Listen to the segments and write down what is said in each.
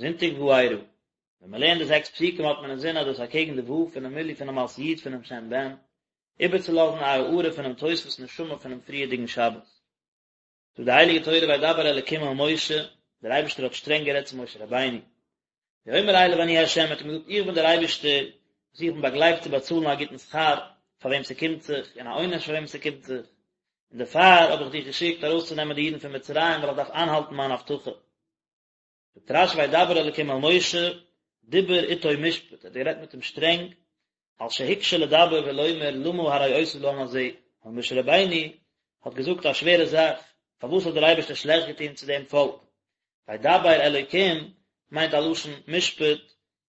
זונטאג וארא. ווען מען לערנט די זעקס פסוקים האט מען אינזין אז דאס איז אקעגן די ו' פונעם מילוי פונעם אות י' פונעם שם בן, איבערצולאזן א הארה פונעם תוספות נשמה פונעם פריערדיגן שבת. זאגט די הייליגע תורה וידבר אלקים אל משה, דער אייבערשטער האט שטרענג גערעדט צו משה רבינו, ויאמר אליו אני ה', האט אים געזאגט איך בין דער אייבערשטער, וואס איך בין באגלייבט צו באצאלן א גוטן שכר פאר וועם ס'קומט זיך, און א עונש פאר וועם ס'קומט זיך, און דערפאר האב איך דיך געשיקט ארויסצונעמען די אידן פון מצרים ווייל איך דארף איינהאלטן מיין הבטחה. זאגט רש"י וידבר אלקים אל משה, דיבר איתו משפט, ער האט גערעדט מיט אים שטרענג, על שהקשה לדבר ולומר למה הרעותה לעם הזה, ווייל משה רבינו האט געזאגט א שווערע זאך, פארוואס האט דער אייבערשטער שלעכט געטון צו דעם פאלק? וידבר אלוקים מיינט א לשון משפט,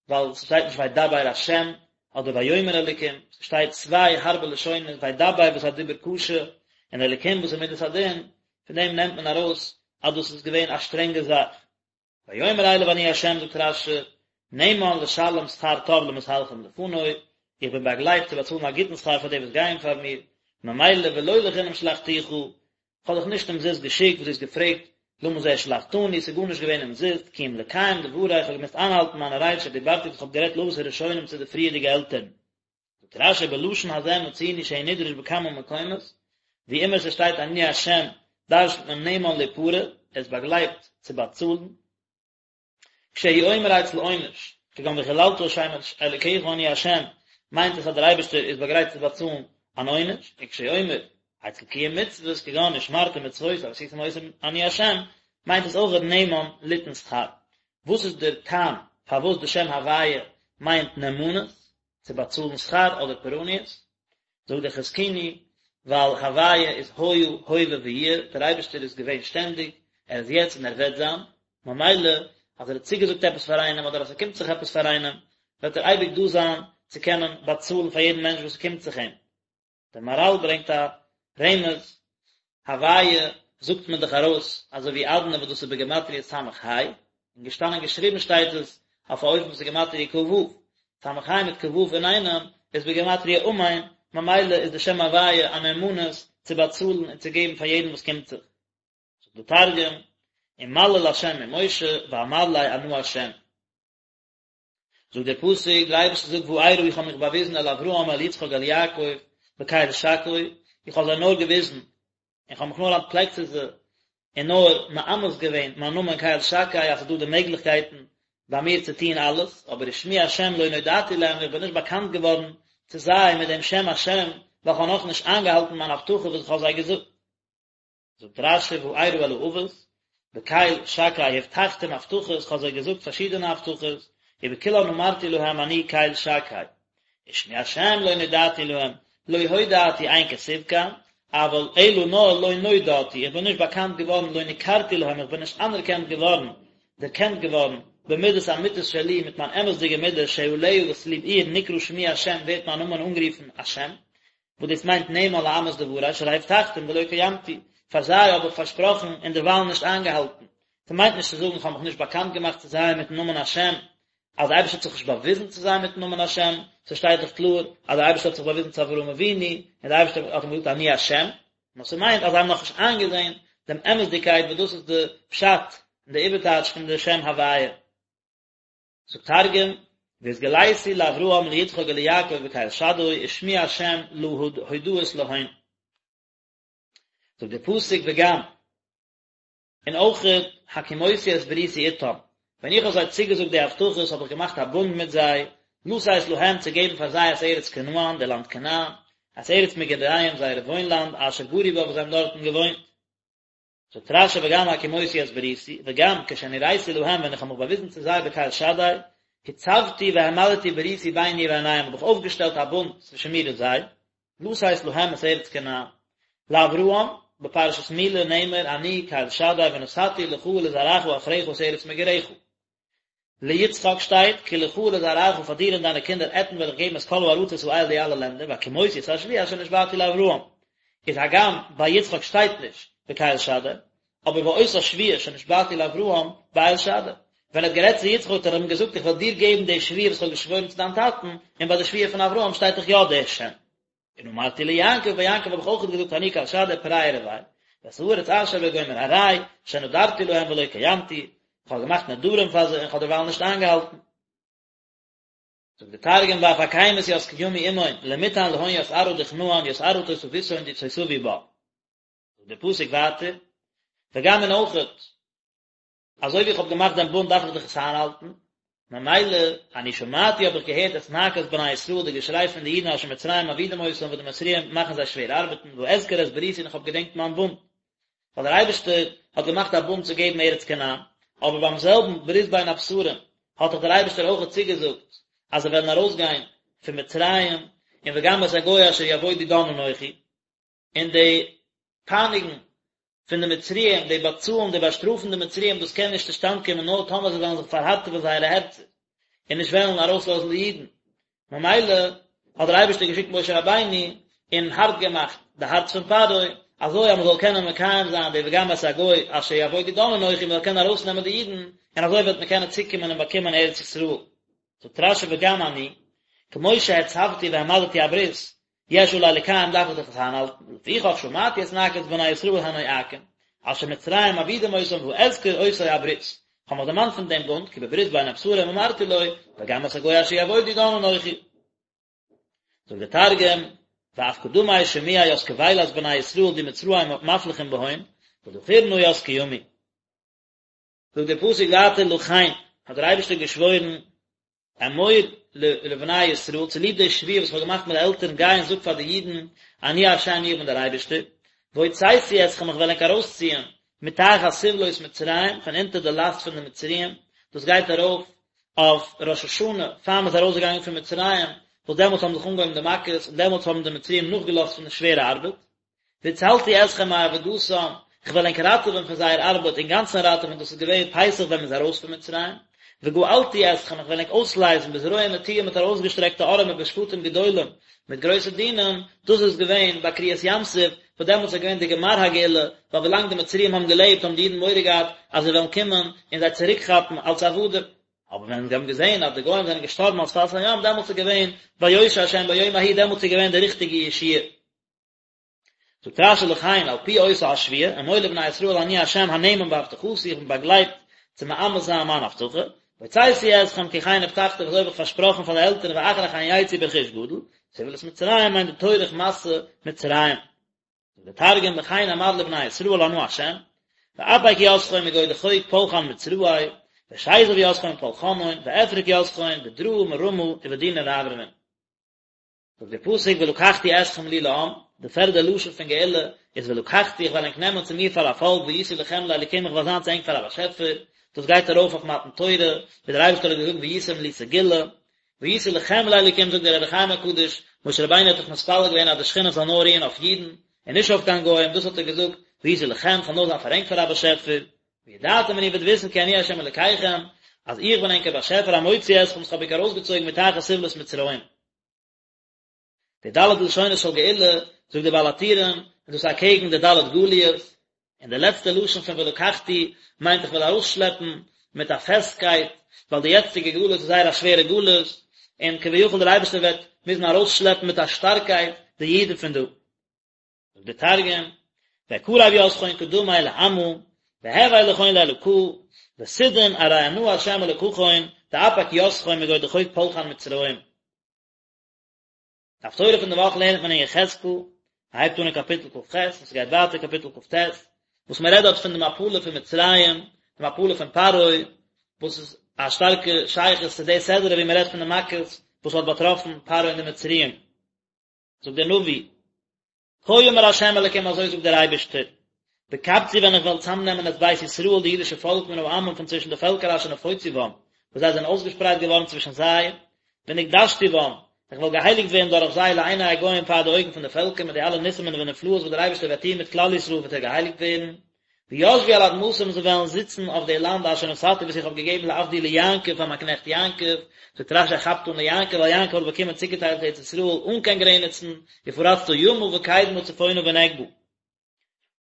ווייל ס'שטייט נישט וידבר השם אדער ויאמר אלוקים, ס'שטייט צוויי הארבע לשונות, וידבר וואס איז א דיבור קשה, און אלוקים וואס איז מידת הדין, פון דעם נעמט מען ארויס אז דאס איז געווען א שטרענגע זאך. ויאמר אליו אני ה' זאגט רש"י, נאמן לשלם שכר טוב למתהלכים לפני, איך בין באגלייבט צו באצאלן א גוטן שכר פאר די וואס גייען פאר מיר, ממילא ולא לחינם שלחתיך, כ'האב דיך נישט אומזיסט געשיקט וואס דו האסט געפרעגט למה זה שלחתני, ס'איז גארנישט געווען אומזיסט, כי אם לקיים דברי, איך האב געמוזט איינהאלטן מיינע רייד שדיברתי וואס איך האב גערעדט לאבות הראשונים צו די פריערדיגע עלטערן. זאגט רש"י בלשון הזה מצינו שהוא נדרש בכמה מקומות, ווי אימער ס'שטייט אני השם דרש'נט מען נאמן ליפרע, ער איז באגלייבט צו באצאלן. כשהוא אומר אצל עונש, כגון וחללת את שם אלוקיך אני השם, מיינט עס אז דער אייבערשטער איז באגרייט צו באצאלן אן עונש, און כשהוא אומר אצל קיום מצוות, כגון ושמרתם מצותי ועשיתם אותם אני השם, מיינט עס אויך נאמן ליתן שכר. וואס איז דער טעם פארוואס די שם הוויה מיינט נאמנות, צו באצאלן שכר אדער פורעניות? זאגט דער חזקוני, ווייל הוויה איז היה, הווה ויהיה, דער אייבערשטער איז געווען שטענדיג, ער איז יעצט און ער וועט זיין, ממילא אז ער האט צוגעזאגט עפעס פאר איינעם אדער אז ס'קומט זיך עפעס פאר איינעם, וועט ער אייביג דא זיין צו קענען באצאלן פאר יעדן מענטש וואס ס'קומט זיך אים. דער מהר"ל ברענגט א רמז, הוויה זאגט מען דאך ארויס אזוי ווי אדני וואס דאס איז בגימטריא סמך ה', און געשטאנען געשריבן שטייט עס אויף א אופן וואס איז גימטריא כ"ו, סמך ה' מיט כ"ו אינאיינעם איז בגימטריא אמן, ממילא איז די שם הוויה א נאמנות צו באצאלן און צו געבן פאר יעדן וואס קומט זיך. זאגט דער תרגום, ומליל השם עם משה ואמר ליה אנא השם. זאגט דער פסוק, דער אייבערשטער זאגט וארא איך האב מיך באוויזן אל אברהם אל יצחק אל יעקב בקל שקי, איך האב זיי נאר געוויזן, איך האב מיך נאר אנטפלעקט צו זיי, און נאר מאמת געווען מיין נאמען קל שקי אז ס'איז דא די מעגליכקייטן ביי מיר צו טון אלעס, אבער ושמי השם לא נודעתי להם איך בין נישט באקאנט געווארן צו זיי מיט דעם שם השם, ווייל איך האב נאכנישט איינגעהאלטן מיין הבטחה וואס איך האב זיי געזאגט. זאגט רש"י וארא אל האבות, בקל שקי הבטחתים הבטחות, כ'האב זיי געזאגט פארשידענע הבטחות, ובכולן אמרתי להם אני קל שקי. ושמי השם לא נודעתי להם, לא הודעתי אין כתיב כאן, אבל אלא נאר לא נודעתי, איך בין נישט באקאנט געווארן, לא ניכרתי להם, איך בין נישט אנערקענט געווארן, דערקענט געווארן, במידת אמיתית שלי, מיט מיין אמת'דיגע מידה, שעליה וואס צוליב איר נקרא שמי השם ווערט מיין נאמען אנגערופן השם, וואס דאס מיינט נאמן לאמת דברי שהרי הבטחתים ולא קיימתי, פאר זיי האב איך פארשפראכן און דערווייל נישט איינגעהאלטן. ס'מיינט נישט צו זאגן איך האב מיך נישט באקאנט געמאכט צו זיי מיטן נאמען השם, אז דער אייבערשטער האט זיך נישט באוויזן צו זיי מיטן נאמען השם, ס'שטייט דאך קלאר אז דער אייבערשטער האט זיך באוויזן צו אברהם אבינו, און דער אייבערשטער האט אים געזאגט אני השם, נאר ס'מיינט אז זיי האבן נאכנישט איינגעזען דעם אמת'דיגקייט וואס דאס איז די פשט און די איבערטייטש פון די שם הוויה. זאגט תרגום, ואתגליתי לאברהם ליצחק וליעקב בקל שדי ושמי השם לא הודעית להון. זאגט דער פסוק וגם, און אויכעט הקימותי את בריתי אתם, ווען איך האב זיי צוגעזאגט די הבטחות האב איך געמאכט א בונד מיט זיי, לתת להם צו געבן פאר זיי את ארץ כנען, די לאנד כנען, את ארץ מגוריהם זייערע וואוינלאנד, אשר גרו בה וואס זיי האבן דארטן געוואוינט. זאגט רש"י וגם הקימותי את בריתי, וגם כשנראיתי להם ווען איך האב מיך באוויזן צו זיי בקל שדי, הצבתי והעמדתי בריתי ביני וביניהם האב איך אויפגעשטעלט א בונד צווישן מיר און זיי, לתת להם את ארץ כנען. לאברהם, בפרשת מילה נאמר אני קל שדי ונתתי לך ולזרעך אחריך את ארץ מגוריך. ליצחק שטייט, כי לך ולזרעך פאר דיר און דיינע קינדער אתן וועל איך געבן את כל הארצות האל די אלע לענדער, והקימותי את השבועה אשר נשבעתי לאברהם. איז הגם ביי יצחק שטייט נישט בקל שדי, אבער ואותה שבועה שנשבעתי לאברהם באל שדי. ווען ער האט גערעדט צו יצחק האט ער אים געזאגט איך וועל דיר געבן די שבועה וואס איך האב געשוואוירן צו דיין טאטן, און ביי די שבועה פון אברהם שטייט דאך יא דער שם. און אמרתי ליעקב, ביי יעקב האב איך אויך געזאגט אני קל שדי פרה ורבה, ואת הארץ אשר וגומר הרי שנדרתי להם ולא קיימתי. איך האב געמאכט נדרים פאר זיי און איך האב דערווייל נישט איינגעהאלטן. זאגט דער תרגום ואף אקיימית ית קימי עמהון למיתן להון ית ארעא דכנען ית ארעא תותבותהון די תותבו בה. זאגט דער פסוק ווייטער, וגם און אויכעט, אזוי ווי איך האב געמאכט דעם בונד דארף איך דאך עס איינהאלטן, ממילא, אני שמעתי האב איך געהערט את נאקת בני ישראל די געשריי פון די אידן אשר מצרים מעבידים אותם וואס די מצריים מאכן זיי שווער ארבעטן, ואזכר את בריתי און איך האב געדענקט מיין בונד. ווייל דער אייבערשטער האט געמאכט א בונד צו געבן ארץ כנען, אבער ביים זעלבן ברית בין הבתרים האט דאך דער אייבערשטער אויך צוגעזאגט אז זיי וועלן ארויסגיין פון מצרים, און וגם את הגוי אשר יעבודו דן אנכי, און די פייניגן פון די מצריים, די באצאלן, די באשטראפן די מצריים, דאס קען נישט צושטאנד קומען נאר טאמער זיי וועלן זיך פארהארטעווען זייערע הערצער און נישט וועלן ארויסלאזן די אידן. ממילא האט דער אייבערשטער געשיקט משה רבינו און הארט געמאכט די הארץ פון פרעה, אזוי אז מען זאל קענען מקיים זיין די וגם את הגוי אשר יעבודו דן אנכי, מען זאל קענען ארויסנעמען די אידן, און אזוי וועט מען קענען צוקומען און באקומען ארץ ישראל. זאגט רשי וגם אני, כמו שהצבתי והעמדתי הברית, יש עלי לקיים דארף איך דאך עס איינהאלטן, לפיכך שמעתי את נאקת בני ישראל הנואקים, אשר מצרים מעבידים אותם ואזכר אותו הברית, כ'האב מיך דערמאנט פון דעם בונד, כי בברית בין הבתרים אמרתי לו, וגם את הגוי אשר יעבודו דן אנכי. זאגט דער תרגום, ואף קדמי שמועי ית קבילת בני ישראל די מצרים מפלחין בהון, ודכירנא ית קימי. זאגט דער פסוק ווייטער לכן האט דער אייבערשטער געשוואוירן אמור לבני ישראל צוליב די שבועה וואס איך האב געמאכט מיט די עלטערן גיי און זאג פאר די אידן אני ה' איך בין דער אייבערשטער והוצאתי אתכם איך וועל ענק ארויסציען מתחת סבלות מצרים פון אונטער די לאסט פון די מצריים דאס גייט ארויף אויף ראש השנה פאר מען איז ארויסגעגאנגען פון מצרים וואס דעמאלטס האבן זיך אנגעהויבן די מכות און דעמאלטס האבן די מצריים נאכגעלאזט פון די שווערע ארבעט והצלתי אתכם מעבדתם, איך וועל ענק ראטעווען פון זייער ארבעט, אינגאנצן ראטעווען, דאס איז געווען פסח ווען מען איז ארויס פון מצרים, וגאלתי אתכם, איך וועל ענק אויסלייזן, בזרוע נטויה מיט ארויסגעשטרעקטע ארעם ובשפטים גדולים, מיט גרויסע דינים, דאס איז געווען ביי קריעת ים סוף, וואס דעמאלטס איז געווען די גמר הגאולה, ווייל ווילאנג די מצריים האבן געלעבט האבן די אידן מורא געהאט אז זיי וועלן קומען און זיי צוריקכאפן אלס עבדים. אבער ווען זיי האבן געזען אז די גוים זענען געשטארבן על שפת הים, דעמאלטס איז געווען ויושע ה' ביום ההוא, דעמאלטס איז געווען די ריכטיגע ישועה. זאגט רשי לכן על פי אותה השבועה אמור לבני ישראל אני ה' הנאמן בהבטחתי איך בין באגלייבט צו מאמת זיין מיין הבטחה והוצאתי אתכם כי כן הבטחתי אזוי האב איך פארשפראכן פאר די עלטערן ואחרי כן יצאו ברכוש גדול סבלות מצרים מיינט די טורח משא מצרים זאגט דער תרגום לכן אמר לבני ישראל אנא ה' ואפיק יתכון מגו דחוק פולחן מצראי ושיזב יתכון מפולחנהון ואפריק יתכון בדרעא מרמא ובדינא רברבין זאגט דער פסוק ולקחתי אתכם לי לעם, די פערדע לשון פון גאולה איז ולקחתי איך וועל ענק נעמען צו מיר פאר א פאלק והייתי לכם לאלוקים איך וועל זיין צו ענק פאר א באשעפער, דאס גייט ארויף אויף מתן תורה, ווי דער אייבערשטער האט געזאגט והייתם לי סגולה, והייתי לכם לאלוקים זאגט דער אור החיים הקדוש, משה רבינו האט דאך מתפלל געווען אז די שכינה זאל נאר רוען אויף אידן, און נישט אויף קיין גוים, דאס האט ער געזאגט והייתי לכם, כ'וועל נאר זיין פאר ענק פאר א באשעפער, וידעתם און איר וועט וויסן כי אני ה' אלוקיכם, אז איך בין ענקער באשעפער המוציא אתכם וואס כ'האב ענק ארויסגעצויגן מתחת סבלות מצרים. די ד' לשונות של גאולה, זאגט דער בעל הטורים, איז דאס אקעגן די ד' גליות, און די לעצטע לשון פון ולקחתי מיינט איך וועל ארויסשלעפן מיט א פעסטקייט, ווייל די יעצטיגע גלות איז זייער א שווערע גלות, און כביכול דער אייבערשטער וועט מוזן ארויסשלעפן מיט א שטארקייט די אידן פון דא. זאגט דער תרגום, ואקרב יתכון קדמי לעמא, ואהוי לכון לאלקא, ותדעון ארי אנא ה' אלקכון, דאפיק יתכון מגו דחוק פולחן מצרים. די הפטורה פון די וואך לערנט מען אין יחזקאל, מען הייבט אן אין קאפיטל כ"ח און ס'גייט ווייטער קאפיטל כ"ט, וואס מען רעדט דארט פון די מפלה פון מצרים, די מפלה פון פרעה, וואס איז א שטארקע שייכות צו די סדרה ווי מען רעדט פון די מכות וואס האט באטראפן פרעה און די מצריים. זאגט דער נביא, כה אמר ה' אלוקים אזוי זאגט דער אייבערשטער, בקבצי ווען איך וועל צאמנעמען את בית ישראל די אידישע פאלק מן העמים פון צווישן די פעלקער אשר נפוצו בם, וואס זיי זענען אויסגעשפרייט געווארן צווישן זיי, ונקדשתי בם, איך וועל געהייליגט ווערן דורך זיי לעיני הגוים פאר די אויגן פון די פעלקער מיט די אלע ניסים און ונפלאות וואס דער אייבערשטער וועט טון מיט כלל ישראל וועט ער געהייליגט ווערן, וישבו על אדמתם זיי וועלן זיצן אויף די לאנד אשר נתתי וואס איך האב געגעבן לעבדי ליעקב פאר מיין קנעכט יעקב, זאגט רש"י ער כאפט אן ליעקב ווייל יעקב האט באקומען צוגעטיילט ארץ ישראל אן קיין גרעניצן, ופרצת ימה וקדמה צפונה ונגבה.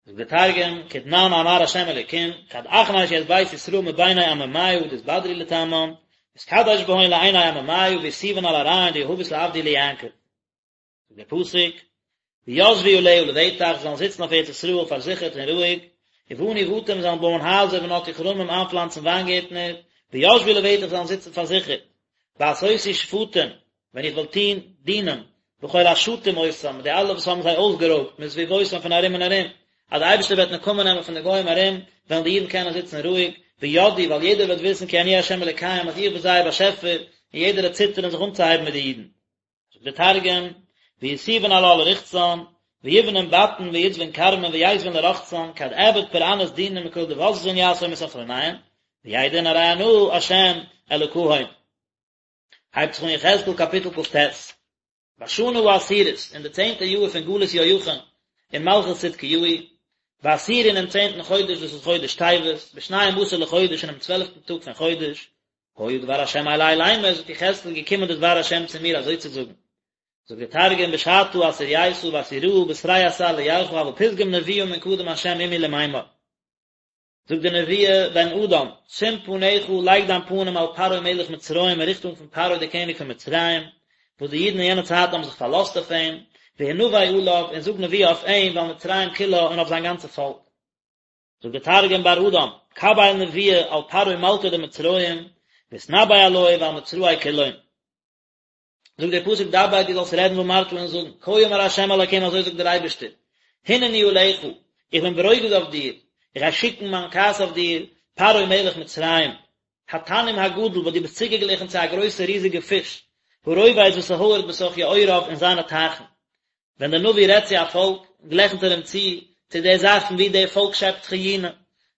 זאגט דער תרגום, כדנן אמר ה' אלוקים, כד אכניש ית בית ישראל מביני עממיא דאתבדרו לתמן, ואתקדש בהון לעיני עממיא ויתיבון על ארעיין דיהבית לעבדי ליעקב. זאגט דער פסוק, וישבו עליה לבטח, זיי זאלן זיצן אויף ארץ ישראל פארזיכערט און רואיג, ובנו בתים זאלן בויען הייזער ונטעו כרמים איינפלאנצן וויינגערטנער, וישבו לבטח זאלן זיצן פארזיכערט. בעשותי שפטים, ווען איך וועל טון דינים, בכל השטים אותם, מיט די אלע וואס האבן זיי אויסגערויבט, מסביבותם פון ארום און ארום, אז דער אייבערשטער וועט נקמה נעמען פון די גוים ארום, וועלן די אידן קענען זיצן רואיג, וידעו, ווייל יעדער וועט וויסן כי אני ה' אלוקיהם אז איך בין זייער באשעפער, און יעדער וועט ציטערן זיך אנצוהייבן מיט די אידן. זאגט דער תרגום, ויתיבון עלה לרוחצן, ויבנון בתין ויטוון כרמין ויתבון לרחצן, כד אעבד פורענות דינין מכל דעבדין יתהון מתחרוניהון, וידעון ארי אנא השם אלקהון. הייבט זיך אן יחזקאל קאפיטל כ"ט. בשנה העשירית, אין די צענטע יאר פון גלות יהויכין און מלכות צדקיהו, בעשירי אינעם צענטן חודש דאס איז חודש טבת, בשנים עשר לחודש אינעם צוועלפטן טאג פון חודש, היה דבר השם אלי לאמר, זאגט יחזקאל געקומען די דבר השם צו מיר אזוי צו זאגן. זאגט דער תרגום בשתא עשיריתא בעשיראה בתרי עשר לירחא הוה פתגם נבואה מן קדם השם עמי למימר. זאגט די נבואה, בן אדם, שים פניך, לייג דיין פנים על פרעה מלך מצרים אין ריכטונג פון פרעה דער קעניג פון מצרים, וואס די אידן אין יענע צייטן האבן זיך פארלאזט אויף אים, והנבא עליו, און זאג נבואה אויף אים, ועל מצרים כולה, און אויף זיין גאנצע פאלק. זאגט דער תרגום, בר אדם, קביל נבואה על פרעה מלכא דמצרים, ואתנבי עלוי ועל מצראי כולהון. זאגט דער פסוק דבר דו זאלסט רעדן ואמרת און זאגן, כה אמר ה' אלקים אזוי זאגט דער אייבערשטער, הנני עליך, איך בין ברוגז אויף דיר, איך גיי שיקן מיין כעס אויף דיר, פרעה מלך מצרים, התנים הגדול וואס דו ביסט צוגעגליכן צו א גרויסע ריזיגע פיש, הרובץ וואס ס'הויערט בתוך יאוריו אין זיינע טייכן. ווען דער נביא רעדט צו א פאלק, גלעכנט ער אים צו צו דער זאך פון וואו דער פאלק שעפט חיונה.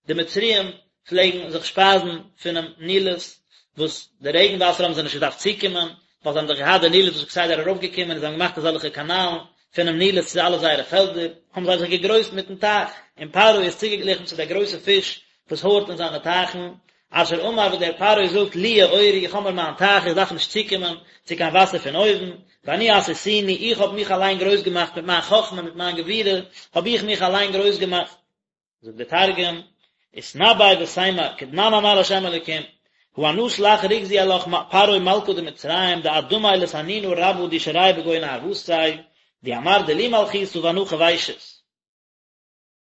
די מצריים פלעגן זיך שפייזן פונעם נילוס, וואס די רעגן וואסער האבן זיי נישט געדארפט צוקומען, ווייל זיי האבן דאך געהאט די נילוס וואס איז כסדר ארויפגעקומען און זיי האבן געמאכט אזעלכע קאנאלן פונעם נילוס צו אלע זייערע פעלדער, האבן זיי זיך געגרויסט מיטן טייך, און פרעה איז צוגעגליכן צו דער גרויסער פיש וואס הויערט אין זיינע טייכן, אשר אמר וואס דער פרעה זאגט לי יאורי איך האב מיר מיין טייך איך דארף נישט צוקומען צו קיין וואסער פון אויבן, ואני עשיתיני איך האב מיך אליין גרויס געמאכט מיט מיין חכמה מיט מיין גבורה האב איך מיך אליין גרויס געמאכט. זאגט דער תרגום, אתנבי ותימר כדמן אמר ה' אלקים, הא אנא שלח רוגזי עלך פרעה מלכא דמצרים דאת דמי לתנינא רבא די שרי בגו נהר בתיה די אמר דילי מלכותא ואנא כבישית.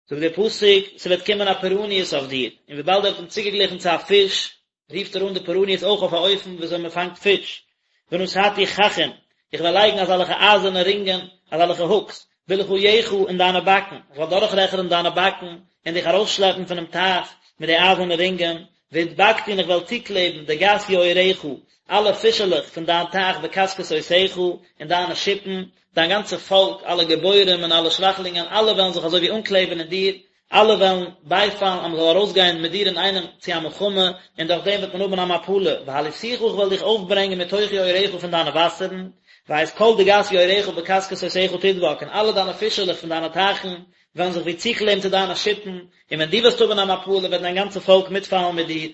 זאגט דער פסוק, ס'וועט קומען א פורעניות אויף דיר, און וויבאלד ער האט אים צוגעגליכן צו א פיש, רופט ער אן די פורעניות אויך אויף א אופן וויאזוי מען פאנגט פיש, ונתתי חחים, איך וועל לייגן אזעלכע אייזערנע רינגען, אזעלכע הוקס, בלחייך אין דיינע באקן, איך וועל דורכלעכערן דיינע באקן, און דיך ארויסשלעפן פונעם טייך מיט די אייזערנע רינגען, והדבקתי און איך וועל צוקלעבן דגת יאוריך, אלע פישעלעך פון דיין טייך בקשקשתיך, אין דיינע שופן, דיין גאנצע פאלק, אלע גיבורים און אלע שוואכלינגען, אלע וועלן זיך אזוי ווי אנקלעבן אין דיר, אלע וועלן בייפאלן אז מען זאל ארויסגיין מיט דיר אינאיינעם צו א מלחמה, און דורך דעם וועט מען האבן א מפלה, והעליתיך איך וועל דיך אויפברענגען מתוך יאוריך פון דיינע וואסערן, ואת כל דגת יאוריך בקשקשתיך תדבק, און אלע דיינע פישעלעך פון דיינע טייכן וועלן זיך ווי צוקלעבן צו דיינע שופן, און ווען דו וועסט האבן א מפלה וועט דיין גאנצע פאלק מיטפאלן מיט דיר.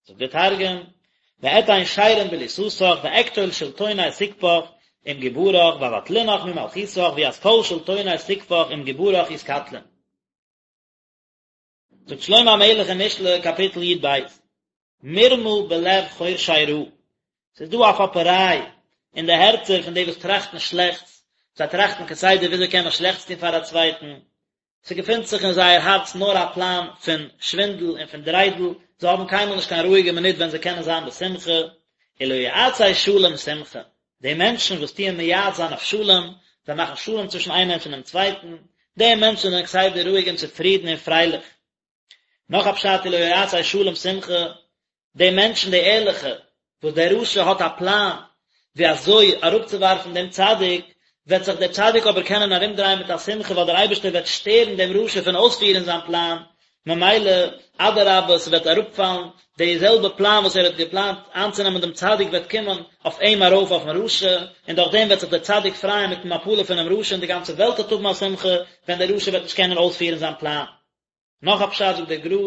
זאגט דער תרגום, ואתין שירין בלסתך ואקטול שלטוני תקפך עם גברך ואבטלינך ממלכותך וית כל שלטוני תקפך עם גברך יתקטלון. זאגט שלמה המלך אין משלי קאפיטל י"ב, מרמה בלב חורשי רע, ס'איז דא א פאפעריי אין די הערצער פון די וואס טראכטן שלעכטס, זיי טראכטן כסדר וויאזוי קען מען שלעכטס טון פאר א צווייטן, ס'געפינט זיך אין זייער הארץ נאר א פלאן פון שווינדל און פון דריידל, זיי האבן קיינמאל נישט קיין רואיגע מינוט ווען זיי קענען זיין בשמחה, וליועצי שלום שמחה, די מענטשן וואס טוען מייעץ זיין אויף שלום, זיי מאכן שלום צווישן איין מענטש און דעם צווייטן, די מענטשן זענען כסדר רואיג און צופרידן און פרייליך. נאך א פשט וליועצי שלום שמחה, די מענטשן די ערליכע, וואס דער רשע האט א פלאן ווי אזוי אראפצואווארפן דעם צדיק, וועט זיך דער צדיק אבער קענען ארומדרייען מיט א שמחה ווייל דער אייבערשטער וועט שטערן דעם רשע פון אויספירן זיין פלאן, ממילא אדרבה ס'וועט אראפפאלן די זעלבע פלאן וואס ער האט געפלאנט איינצונעמען דעם צדיק וועט קומען אויף אים ארויף אויפן רשע, און דורך דעם וועט זיך דער צדיק פרייען מיטן מפלה פונעם רשע און די גאנצע וועלט וועט האבן א שמחה ווען דער רשע וועט נישט קענען אויספירן זיין פלאן. נאך א פשט זאגט דער גר"א,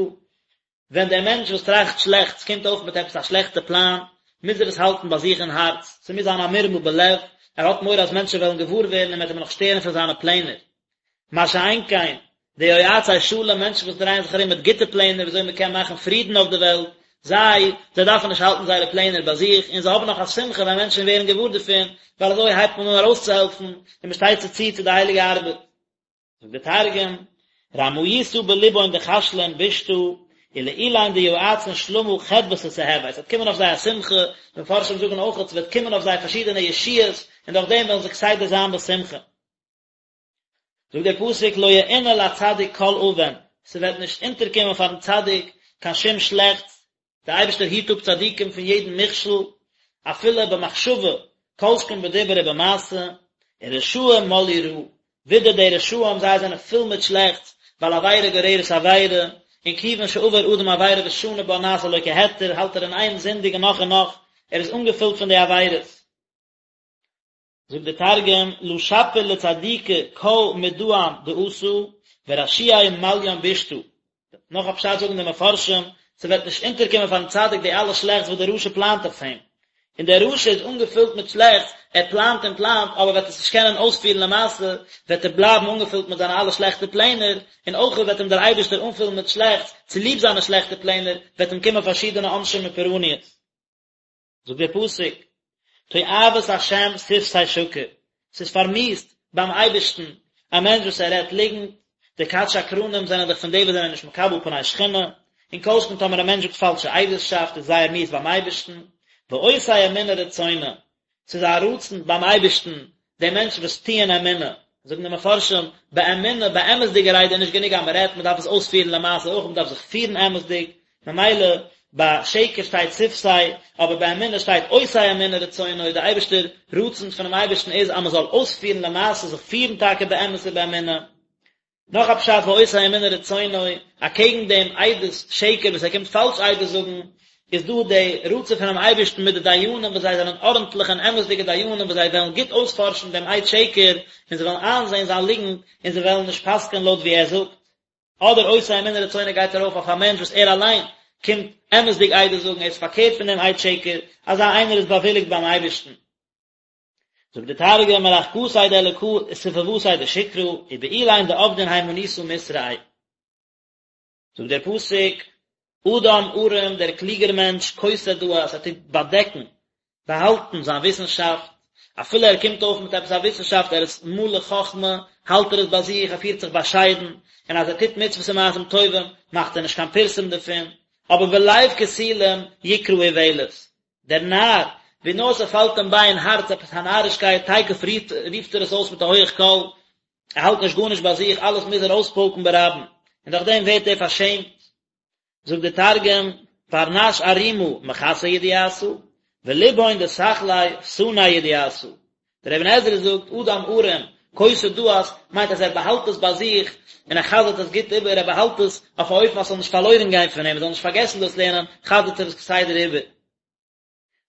ווען דער מענטש וואס טראכט שלעכטס קומט אויף מיט עפעס א שלעכטע פלאן, מוז ער עס האלטן ביי זיך אין הארץ, ס'מוז זיין א מרמה בלב, ער האט מורא אז מענטשן וועלן געוואר ווערן און מ'וועט אים נאך שטערן פון זיינע פלענער. מה שאין כן, די יועצי שלום, מענטשן וואס דרייען זיך ארום מיט גוטע פלענער וויאזוי מ'קען מאכן פרידן אויף די וועלט, זיי, זיי דארפן נישט האלטן זייערע פלענער ביי זיך, און זיי האבן נאך א שמחה ווען מענטשן ווערן געוואר דערפון, ווייל אזוי הייבט מען אן ארויסצוהעלפן, און מ'שטייט זיך צו צו די הייליגע ארבעט. זאגט דער תרגום, רמיותא בלבהון דחשלין בישתא, ולאלין דיעצון שלמא חדוותא תהוי, ס'וועט קומען אויף זיי א שמחה, די מפרשים זאגן אויך ס'וועט קומען אויף זיי פארשידענע ישועות, און דורך דעם וועלן זיי כסדר זיין בשמחה. זאגט דער פסוק לא יאונה לצדיק כל און, ס'וועט נישט אונטערקומען פארן צדיק קיין שום שלעכטס, דער אייבערשטער היט אפ צדיקים פון יעדן מכשול, אפילו במחשבה, כל שכן בדיבור ובמעשה, ורשעים מלאו רע, ווידער די רשעים זיי זענען פול מיט שלעכטס, ווייל עבירה גוררת עבירה, און כיוון שעבר אדם עבירה ושנה בה נעשה לו כהיתר, האלט ער אין איין זינדיגן נאך און נאך, ער איז אנגעפולט פון די עבירות. זאגט דער תרגום, לא שפיר לצדיקא כל מדעם דאתא, ורשיעי מליין בישתא. נאך א פשט זאגן די מפרשים, ס'וועט נישט אונטערקומען פארן צדיק די אלע שלעכטס וואס דער רשע פלאנט אויף אים. און דער רשע איז אנגעפולט מיט שלעכטס, ער פלאנט און פלאנט, אבער וועט עס נישט קענען אויספירן למעשה, וועט ער בלייבן אנגעפולט מיט זיינע אלע שלעכטע פלענער, און אויך וועט אים דער אייבערשטער אנפולן מיט שלעכטס, צוליב זיינע שלעכטע פלענער, וועט אים קומען פארשידענע עונשים און פורעניות. זאגט דער פסוק, תועבת השם שפתי שקר, ס'איז פארמיאוסט ביים אייבערשטן א מענטש וואס ער רעדט ליגנט, די כת שקרנים זענען דאך פון די וואס זענען נישט מקבל פני שכינה, און כל שכן טאמער א מענטש זאגט פאלשע עדות'שאפט איז זייער מיאוס ביים אייבערשטן, ועושי אמונה רצונו, ס'איז א רצון ביים אייבערשטן די מענטשן וואס טוען אמונה, זאגן די מפרשים, באמונה, באמת'דיגערהייט איז נישט גענוג אז מען רעדט, מען דארף עס אויספירן למעשה אויך, מען דארף זיך פירן אמת'דיג, ממילא ביי שקר שטייט שפתי, אבער ביי אמונה שטייט עושי אמונה רצונו, די אייבערשטער, רצון פונעם אייבערשטן איז אז מען זאל אויספירן למעשה, זיך פירן טאקע באמת ובאמונה. נאך א פשט ועושי אמונה רצונו, אקעגן דעם עדות שקר וואס ער קומט פאלש עדות זאגן, איז דא די רצון פונעם אייבערשטן מיט די דיינים וואס זיי זענען ארנטליכע און אמת'דיגע דיינים וואס זיי וועלן גוט אויספארשן דעם עד שקר און זיי וועלן איינזען זיין ליגנט און זיי וועלן נישט פסק'ען לויט ווי ער זאגט. אדער עושי אמונה רצונו גייט ארויף אויף א מענטש וואס ער אליין קומט אמת'דיג עדות זאגן, ער איז פארקערט פון דעם עד שקר, אזא איינער איז באוויליגט ביים אייבערשטן. זאגט די תרגום מרחקתיה דאלקא ספוותיה דשקרא ובעילין דעבדין הימנותא מתרעי. זאגט דער פסוק, אדם ערום דער קלוגער מענטש כוסה דעת ער טוט באדעקן, באהאלטן זיין וויסנשאפט, אפילו ער קומט אויף מיט עפעס א וויסנשאפט ער איז מלא חכמה, האלט ער עס ביי זיך, ער פירט זיך באשיידן, און אז ער טוט מצוות און מעשים טובים, מאכט ער נישט קיין פרסום דערפון, אבער ולב כסילים יקרא אולת, דער נאר, ווי נאר ס'פאלט אים ביי אין הארץ עפעס א נארישקייט, תיכף רופט ער עס אויס מיט א הויעך קול, ער האלט נישט גארנישט ביי זיך, אלעס מוז ער אויספויקן ברבים, און דורך דעם ווערט ער פארשעמט. זאגט דער תרגום, בר נש ערימא מכסי ידיעתא, ולבהון דסכלי סני ידיעתא. דער אבן עזרא זאגט, אדם ערום, כוסה דעת, מיינט אז ער באהאלט עס ביי זיך, און ער חזר'ט עס גוט איבער, ער באהאלט עס אויף א אופן אז ס'זאל נישט פארלוירן גיין פון אים, ער זאל נישט פארגעסן דאס לערנען, חזר'ט ער עס כסדר איבער.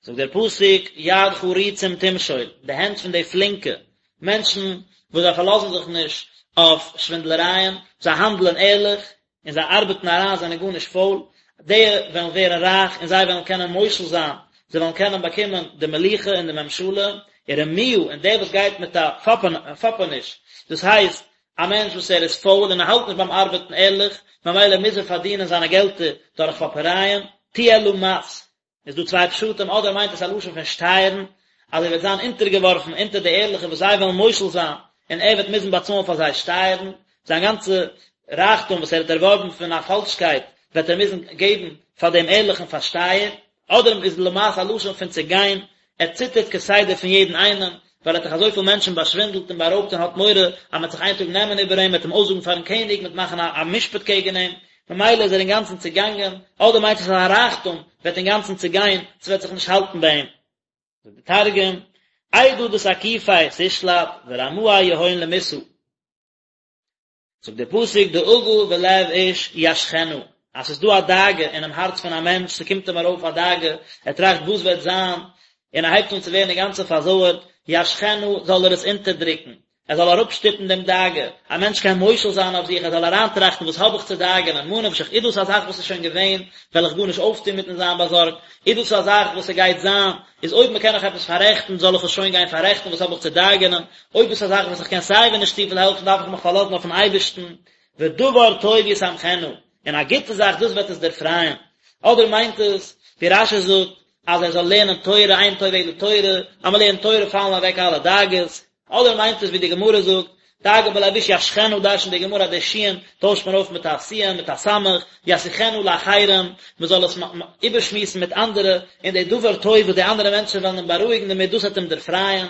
זאגט דער פסוק, יד חרוצים תמשול, די הענט פון די פלינקע מענטשן וואס זיי פארלאזן זיך נישט אויף שווינדלערייען, זיי האנדלען ערליך, און זיי ארבעטן אריין, זענען גארנישט פויל, די וועלן ווערן רייך און זיי וועלן קענען מושל זיין, זיי וועלן קענען באקומען די מלוכה און די ממשלה, ורמיה, און דער וואס גייט מיט א פאפעניש, דאס הייסט, א מענטש וואס ער איז פויל און ער האלט נישט ביים ארבעטן ערליך, ממילא מוז ער פארדינען זיינע געלטער דורך פאפערייען, תהיה למס. איז דא צוויי פשטים, אדער מיינט עס א לשון פון שטייערן, אז ער וועט זיין אונטערגעווארפן אונטער די ערליכע וואס זיי וועלן מושל זיין, און ער וועט מוזן באצאלן פאר זיי שטייערן, זיין גאנצע רייכטום וואס ער האט ערווארבן פון א פאלשקייט וועט ער מוזן געבן פאר דעם ערליכן פאר שטייער, אדער איז למס א לשון פון צעגיין, ער ציטערט כסדר פון יעדן איינעם, ווייל ער האט דאך אזויפיל מענטשן באשווינדלט און בארויבט און האט מורא אז מען וועט זיך איין טאג נעמען איבער אים, מען וועט אים אויסזאגן פארן קעניג, מען וועט מאכן א משפט קעגן אים, ממילא איז ער אינגאנצן צעגאנגען, אדער מיינט עס אז זיין רייכטום וועט אינגאנצן צעגיין, ס'וועט זיך נישט האלטן ביי אים. זאגט די תרגום, אידא דתקיפי תשלט, ורמאי יהון למסא. זאגט דער פסוק דאגה בלב איש ישחנה, אז ס'איז דא א דאגה אינעם הארץ פון א מענטש, ס'קומט אים ארויף א דאגה, ער טראכט וואס וועט זיין, און ער הייבט אן צו ווערן אינגאנצן פארזויערט, ישחנה, זאל ער עס אונטערדרוקן, ער זאל אראפשטופן דעם דאגה, א מענטש קען מושל זיין אויף זיך, ער זאל אריינטראכטן וואס האב איך צו דאגה'נען, ממה נפשך, איז דאס א זאך וואס איז שוין געווען, וועל איך גארנישט אויפטון מיטן זיין באזארגט, איז דאס א זאך וואס ס'גייט זיין, איז אויב מ'קען נאך עפעס פאררעכטן, זאל איך עס שוין גיין פאררעכטן, וואס האב איך צו דאגה'נען, אויב איז עס א זאך וואס איך קען סיי ווי נישט צופיל העלפן, דארף איך מיך פארלאזן אויפן אייבערשטן, ודבר טוב ישמחנה, און א גוטע זאך דאס וועט עס דערפרייען. אדער מיינט עס, ווי רש"י זאגט, אז ער זאל לערנען תורה, אין טוב אלא תורה, אז מ'לערנט תורה פאלן אוועק אלע דאגות, אדער מיינט עס ווי די גמרא זאגט, דאגה בלב איש ישחנה דרש'נט די גמרא אז די שין טוישט מען אויף מיט א סין מיט א סמך, ישיחנה לאחרים, מען זאל עס איבערשמועסן מיט אנדערע, און די דבר טוב וואס די אנדערע מענטשן וועלן אים בארואיגן דערמיט דאס וועט אים דערפרייען.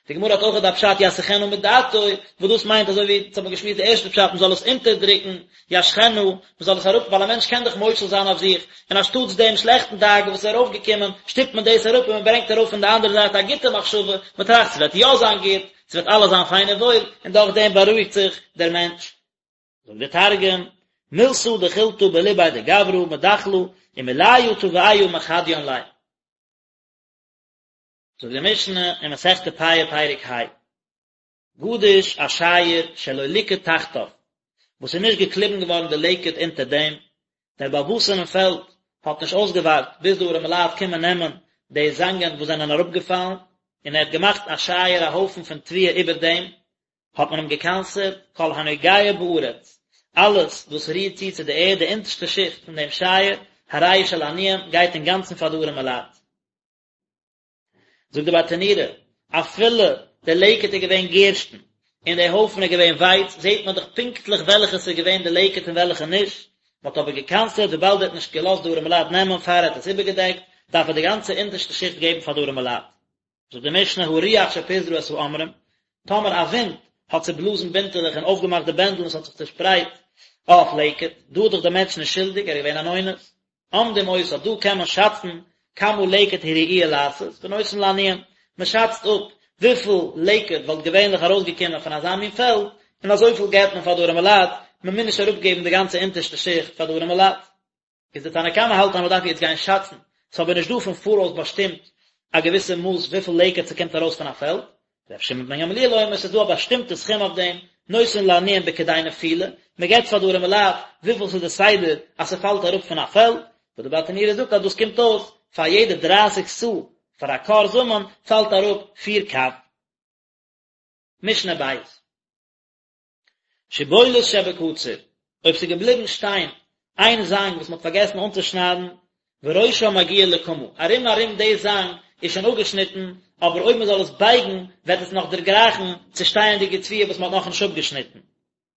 די גמרא האט אויך א פשט יסיחנה מדעתו, וואס דאס מיינט אזוי ווי אונז האבן געשמועסט די ערשטע פשט מען זאל עס אונטערדרוקן, ישחנה, מען זאל עס אראפ, ווייל א מענטש קען דאך מושל זיין אויף זיך, און אנשטאטס דעם שלעכטן דאגה וואס איז ארויפגעקומען, שטופט מען דאס אראפ און מען ברענגט ארויף פון די אנדערע זייט א גוטע מחשבה, מען טראכט ס'וועט יא זיין גוט, ס'וועט אלעס זיין פיין און וואויל, און דורך דעם בארואיגט זיך דער מענטש. זאגט דער תרגום, מילתא דחילתא בליביה דגברא מדחלא ומיליא טבעיא מחדיין ליה. זאגט די משנה אין מסכת פאה פרק ה, גדיש א שייער שלא ליקט תחתיו, וואס איז נישט געקליבן געווארן די לקט אונטער דעם, דער בעל הבית אינעם פעלד האט נישט אויסגעווארט ביז די ארעמעלייט קומען נעמען די זאנגען וואס זענען אראפגעפאלן, און ער האט געמאכט א שייער א הויפן פון תבואה איבער דעם, האט מען אים געקנס'עט, כל הנוגע בארץ, אלעס וואס רירט צו צו די ערד, די אונטערשטע שיכט פון דעם שייער, הרי הוא של עניים, גייט אינגאנצן פאר די ארעמעלייט. זאגט די ברטנורא, אפילו די לקט איז געווען גערשטן און די הויפן איז געווען ווייץ, זעט מען דאך פונקטליך וועלכע ס'איז געווען די לקט און וועלכע נישט, מ'האט אבער געקנס'עט וויבאלד ער האט נישט געלאזט די ארעמעלייט נעמען פאר ער האט עס איבערגעדעקט, דארף ער די גאנצע אונטערשטע שיכט געבן פאר די ארעמעלייט. זאגט די משנה הרוח שפיזרה את העמרים, טאמער א ווינט האט צעבלאזן בינטעלעך און אויפגעמאכט די בענדל און ס'האט זיך צעשפרייט אויף לקט, דא איז דאך דער מענטש נישט שולדיג, ער איז געווען אן אונס, אומדים אותה, דא קען מען שאצן כמה לקט היא ראויה לעשות, ונותן לעניים, מען שאצט אפ וויפיל לקט וואלט געווענליך ארויסגעקומען פון אזא מין פעלד, און אזויפיל געבט מען פאר די ארעמע לייט, מען מוז נישט אראפגעבן די גאנצע אונטערשטע שיכט פאר די ארעמע לייט. איז די תנא קמא האלט אז מען דארף יעצט גיין שאצן, ס'איז אבער נישט דא פון פאראויס באשטימט א געוויסע מאס וויפיל לקט ס'קומט ארויס פון א פעלד, ר' שמעון בן גמליאל אומר ס'איז דא א באשטימטע סכום אויף דעם, נותן לעניים בכדי נפילה, מען געבט פאר די ארעמע לייט וויפיל ס'איז די סדר אז ס'פאלט אראפ פון א פעלד, וואס די ברטנורא זאגט אז דאס קומט אויס פאר יעדע דרייסיג סאה פאר א כור זאמען פאלט אראפ פיר קב. משנה בית. שיבולת שבקציר, אויב ס'איז געבליבן שטיין איין זאנג וואס מ'האט פארגעסן אנצושניידן, וראשה מגיע לקמה, ארום ארום די זאנג איז שוין אפגעשניטן, אבער אויב מ'זאל עס בייגן וועט עס נאך דערגרייכן צו שטייענדיגע תבואה וואס מ'האט נאכנישט אפגעשניטן.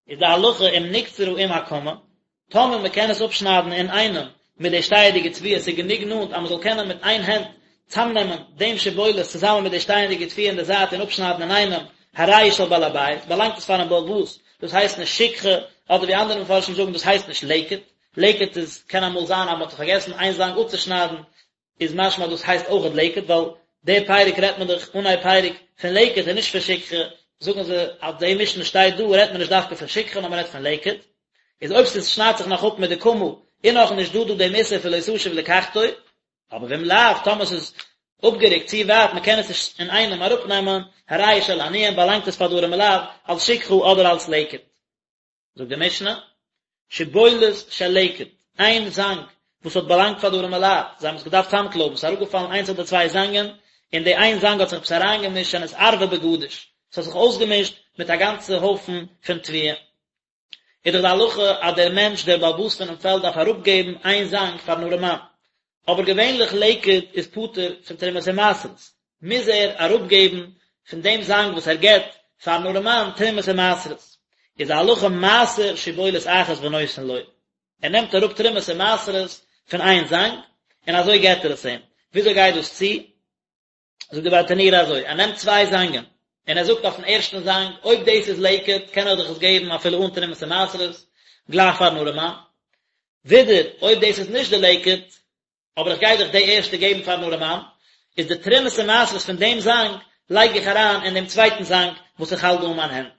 איז די הלכה אם נקצרה עם הקמה, טאמער מען קען עס אפשניידן אינאיינעם מיט די שטייעדיגע תבואה, ס'איז גענוג נאנט אז מען זאל קענען מיט איין הענט צאמנעמען דעם שיבולת צוזאמען מיט די שטייענדיגע תבואה אין די זייט און אפשניידן אינאיינעם, הרי היא של בעל הבית, באלאנגט עס פארן בעל הבית, דאס הייסט נישט שכחה, אדער ווי אנדערע מפרשים זאגן דאס הייסט נישט לקט, לקט איז קען אמאל זיין אז מען האט פארגעסן איין זאנג אפצושניידן, איז משמע אז דאס הייסט אויכעט לקט, ווייל די פרק רעדט מען דאך אנהייב פרק פון לקט און נישט פון שכחה, זאגן זיי אז די משנה שטייט דא רעדט מען נישט דווקא פון שכחה נאר מען רעדט פון לקט, איז אויב ס'שניידט זיך נאך אפ מיט די קמה איז נאך נישט דא דא דעם איסור פון לא תשוב לקחתו, אבער ואם לאו, טאמער ס'איז אפגערוקט צו ווייט מען קען עס נישט אינאיינעם אראפנעמען, הרי היא של עניים באלאנגט עס פאר די ארעמע לייט אלס שכחה אדער אלס לקט. זאגט די משנה, שיבולת של לקט, איין זאנג וואס האט באלאנגט פאר די ארעמע לייט, זיי האבן עס געדארפט צאמקלויבן, ס'איז אראפגעפאלן איינס אדער צוויי זאנגען, און די איין זאנג האט זיך עפעס אריינגעמישט שנתערבה בגדיש, ס'האט זיך אויסגעמישט מיט א גאנצע הויפן פון תבואה. איז דאך די הלכה אז דער מענטש, דער בעל הבית פונעם פעלד דארף אראפגעבן איין זאנג פארן ארעמאן, אבער געווענליך לקט איז פטור פון תרומות ומעשרות, מוז ער אראפגעבן פון דעם זאנג וואס ער געבט פארן ארעמאן תרומות ומעשרות, איז די הלכה מעשר שיבולת אחת ונותן לו, ער נעמט אראפ תרומות ומעשרות פון איין זאנג, און אזוי געבט ער עס אים, וויאזוי גייט דאס צו? זאגט די ברטנורא אזוי, ער נעמט צוויי זאנגען, און ער זאגט אויפן ערשטן זאנג, אויב דאס איז לקט, קען איך דיך עס געבן אפילו אן תרומות ומעשרות, גלייך פארן ארעמאן. ווידער, אויב דאס איז נישט די לקט, אבער איך גיי דיך די ערשטע געבן פארן ארעמאן, איז די תרומות ומעשרות פון דעם זאנג, לייג איך אריין אין דעם צווייטן זאנג וואס איך האלט דא אין מיין הענט.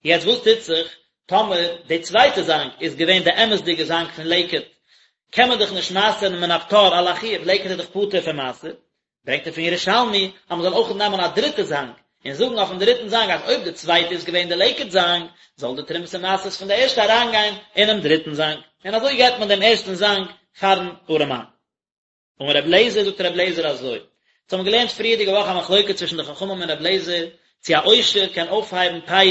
יעצט וואס טוט זיך טאמער די צווייטע זאנג איז געווען די אמת'דיגע זאנג פון לקט, קען מען דאך נישט מעשר'ן מן הפטור על החיוב, לקט איז דאך פטור פון מעשר, ברענגט ער פון ירושלמי אז מען זאל אויך נעמען א דריטע זאנג, און זאגן אויפן דריטן זאנג אז אויב די צווייטע איז געווען די לקט זאנג, זאל די תרומות ומעשרות פון די ערשטע אריינגיין אינעם דריטן זאנג, און אזוי געבט מען דעם ערשטן זאנג פארן ארעמאן. אמר רבי אליעזר, זאגט רבי אליעזר אזוי, אונז האבן געלערנט פריערדיגע וואך א מחלוקת צווישן די חכמים און רבי אליעזר, צו א עושר קען אויפהייבן פאה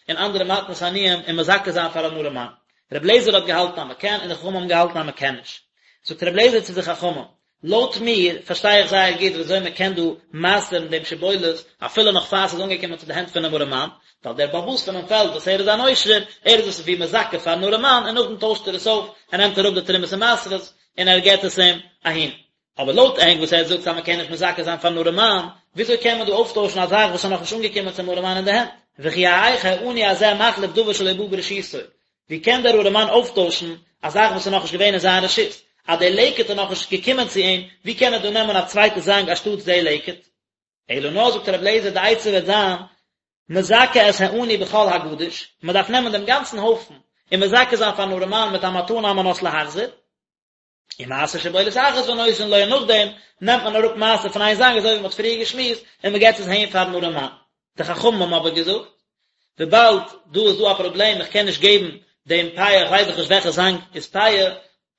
און אנדערע מתנות עניים און מזכה זיין פאר אן ארעמאן. רבי אליעזר האט געהאלטן אז מען קען און די חכמים האבן געהאלטן אז מען קען נישט. זאגט רבי אליעזר צו די חכמים, לויט מיר פארשטיי איך זייער גוט ווי אזוי מען קען דא מעשר'ן דעם שיבולת אפילו נאך פאר ס'איז אנגעקומען צו די הענט פונעם ארעמאן, ווייל דער בעל הבית פונעם פעלד וואס ער איז אן עושר, ער איז עס ווי מזכה פארן ארעמאן און נאכדעם טוישט ער עס אויף, ער נעמט אראפ די תרומות און מעשרות און ער געבט עס אים אהין. אבער לויט ענק וואס עטס זאגטס אז מען קען נישט מזכה זיין פארן ארעמאן, וויאזוי קען מען דא אויפטוישן א זאך וואס איז נאכנישט אנגעקומען צום ארעמאן אין די הענט? וכי היאך העני הזה מחליף דבר שלא בא ברשותו, ווי קען דער ארעמאן אויפטוישן א זאך וואס איז נאכנישט געווען אין זיין רשות? אז דער לקט איז נאכנישט געקומען צו אים, ווי קען ער דא נעמען א צווייטע זאנג אנשטאטס די לקט? אלא נאר זאגט רבי אליעזר די עצה וועט זיין, מזכה את העני בכל הגדיש, מען דארף נעמען דעם גאנצן הויפן און מזכה זיין פארן ארעמאן מיט א מתנה על מנת להחזיר, ומעשר שבולת אחת ונותן לו און נאכדעם נעמט מען אראפ מעשר פון איין זאנג אזוי ווי מען האט פריער געשמועסט און מען געבט עס אהין פארן ארעמאן. די חכמים האבן אבער געזאגט, וויבאלד דא איז דא א פראבלעם איך קען נישט געבן דעם פאה איך ווייס דאך נישט וועלכע זאנג איז פאה,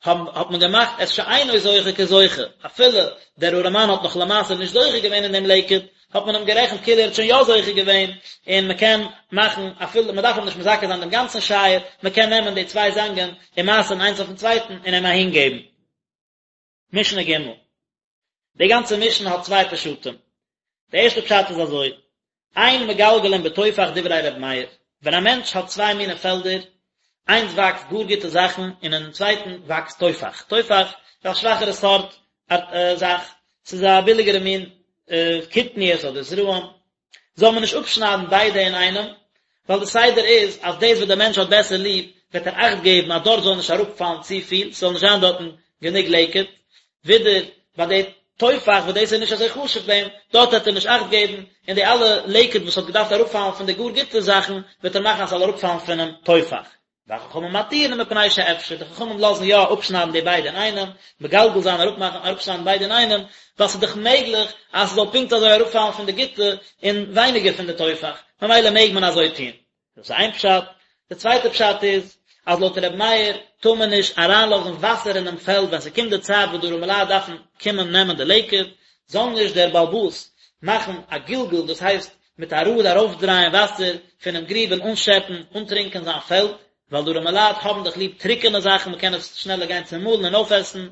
האבן האט מען געמאכט את שאינו זוכה כזוכה, אפילו דער ארעמאן האט נאך למעשה נישט זוכה געווען אין דעם לקט, האט מען אים גערעכנט כאילו ער האט שוין יא זוכה געווען, און מען קען מאכן אפילו מען דארף אים נישט מזכה זיין דעם גאנצן שייער, מען קען נעמען די צוויי זאנגען און מעשר'ן איינס אויפן צווייטן און אים אהין געבן. משנה ג'. די גאנצע משנה האט צוויי פשטים. די ערשטע פשט איז אזוי, אין מגלגלין בטופח דברי ר' מאיר, ווען א מענטש האט צוויי מיני פעלדער, איינס וואקסט גאר גוטע זאכן און אינעם צווייטן וואקסט טופח, טופח איז א שוואכערע סארט זאך, ס'איז א ביליגערע מין קטניות אדער זרעים, זאל מען נישט אפשניידן ביידע אינאיינעם, ווייל די סדר איז אז דאס וואס דער מענטש האט בעסער ליב וועט ער אכט געבן אז דארט זאל נישט אראפפאלן צופיל, ס'זאל נישט זיין דארטן גענוג לקט, ווידער ביי די טופח וואס דאס איז נישט אזוי חשוב ביי אים, דארט וועט ער נישט אכט געבן, און די אלע לקט וואס האט געדארפט אראפפאלן פון די גאר גוטע זאכן וועט ער מאכן אז ס'זאל אראפפאלן פונעם טופח. והחכמים מתירין מפני שאפשר, די חכמים לאזן יא אפשניידן די ביידע אינאיינעם, מגלגל זיין אראפמאכן אראפשניידן ביידע אינאיינעם, ווייל ס'איז דאך מעגליך אז ס'זאל פונקט אזוי אראפפאלן פון די גוטע און ווייניגער פון די טופח, ממילא מעג מען אזוי טון. דאס איז איין פשט. די צווייטע פשט איז, אז לויט ר' מאיר טאר מען נישט אריינלאזן וואסער אינעם פעלד ווען ס'קומט די צייט וואס די ארימעלייט דארפן קומען נעמען די לקט, זאל נישט דער בעל הבית מאכן א גלגול, דאס הייסט מיט א ראד ארויפדרייען וואסער פונעם גריב און אנשעפן, אנטרינקען זיין פעלד, ווייל די ארימעלייט האבן דאך ליב טרוקענע זאכן, מ'קען עס שנעלער גיין צומאלן און אויפעסן,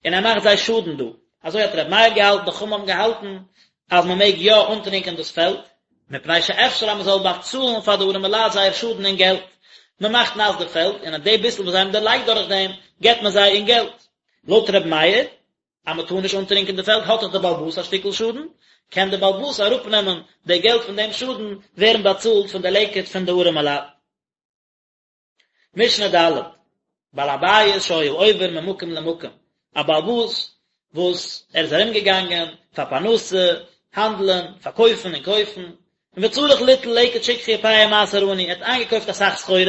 און ער מאכט זיי שאדן דא. אזוי האט ר' מאיר געהאלטן, די חכמים האבן געהאלטן אז מען מעג יא אנטרינקען דאס פעלד, מפני שאפשר אז מען זאל באצאלן פאר די ארימעלייט זייער שאדן אין געלט. מען מאכט נאס די פעלד, און די ביסל וואס זיי האבן דערלייגט דורך דעם, געבט מען זיי אין געלט. לויט ר' מאיר, אז מען טאר נישט אנטרינקען די פעלד, האט דאך דער בעל הבית א שטיקל שאדן, קען דער בעל הבית אראפנעמען די געלט פון דעם שאדן, ווערן באצאלט פון די לקט פון די ארימעלייט. משנה ד', בעל הבית שהיה עובר ממקום למקום, א בעל הבית וואס ער איז ארום געגאנגען פאר פרנסה, האנדלען, פארקויפן און קויפן, און וצריך ליטול לקט שכחה ופאה ומעשר עני, ער האט איינגעקויפט אסאך סחורה,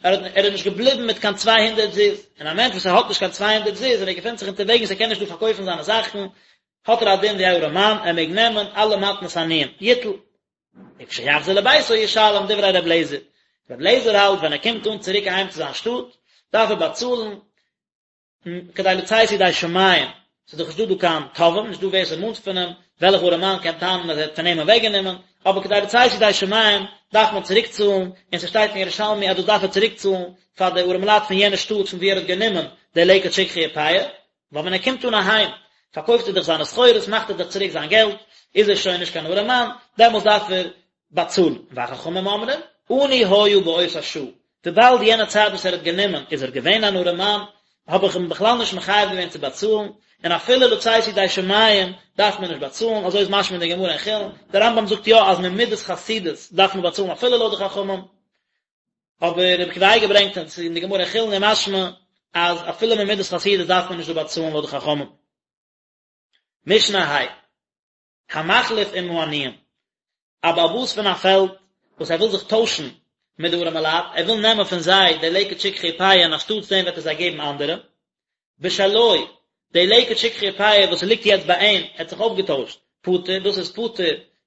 ער האט ער איז נישט געבליבן מיט קיין צוויי הונדערט זוז, און א מענטש וואס ער האט נישט קיין צוויי הונדערט זוז און ער געפינט זיך אונטערוועגנס ער קען נישט דא פארקויפן זיינע זאכן, האט ער א דין ווי א ארעמאן, ער מעג נעמען אלע מתנות עניים, יטול. וכשיחזור לביתו ישלם דברי ר' לעזער, ר' לעזער האלט ווען ער קומט אן צוריק אהיים צו זיין שטאט דארף ער באצאלן כדי לצאת ידי שמים, ס'איז דאך נישט דא דא קיין תובעים, נישט דא ווער ס'מאנט פון אים, וועלכע ארעמאן קען טענה'ן אז ער האט פון אים אוועקגענומען, אבער כדי לצאת ידי שמים דארף מען צוריקצאלן, און ס'שטייט אין ירושלמי אז דאס דארף ער צוריקצאלן פאר די ארעמעלייט פון יענע שטאט פון וואו ער האט גענומען די לקט שכחה ופאה. ווייל ווען ער קומט אן אהיים פארקויפט ער דאך זיינע סחורות, מאכט ער דאך צוריק זיין געלט, איז ער שוין נישט קיין ארעמאן, דעמאלס דארף ער באצאלן. והחכמים אומרים, עני היה באותה שעה, וויבאלד יענע צייט וואס ער האט גענומען איז ער געווען אן ארעמאן, האב איך אים בכלל נישט מחייב געווען צו באצאלן, און אפילו לצאת ידי שמים דארף מען נישט באצאלן, אזוי איז משמע אין די גמרא אין חולין, דער רמב"ם זאגט יא אז ממידת חסידות דארף מען באצאלן אפילו לויט די חכמים, אבער רבי עקיבא אייגער ברענגט אז אין די גמרא אין חולין איז משמע אז אפילו ממידת חסידות דארף מען נישט דא באצאלן לויט די חכמים. משנה ה' המחליף עם העניים, א בעל הבית פון א פעלד וואס ער וויל זיך טוישן מיט די ארעמעלייט, ער וויל נעמען פון זיי די לקט שכחה ופאה און אנשטאטס דעם וועט ער זיי געבן אנדערע, בשלו, די לקט שכחה ופאה וואס ליגט יעצט ביי אים, האט זיך אויפגעטוישט, פטור, דאס איז פטור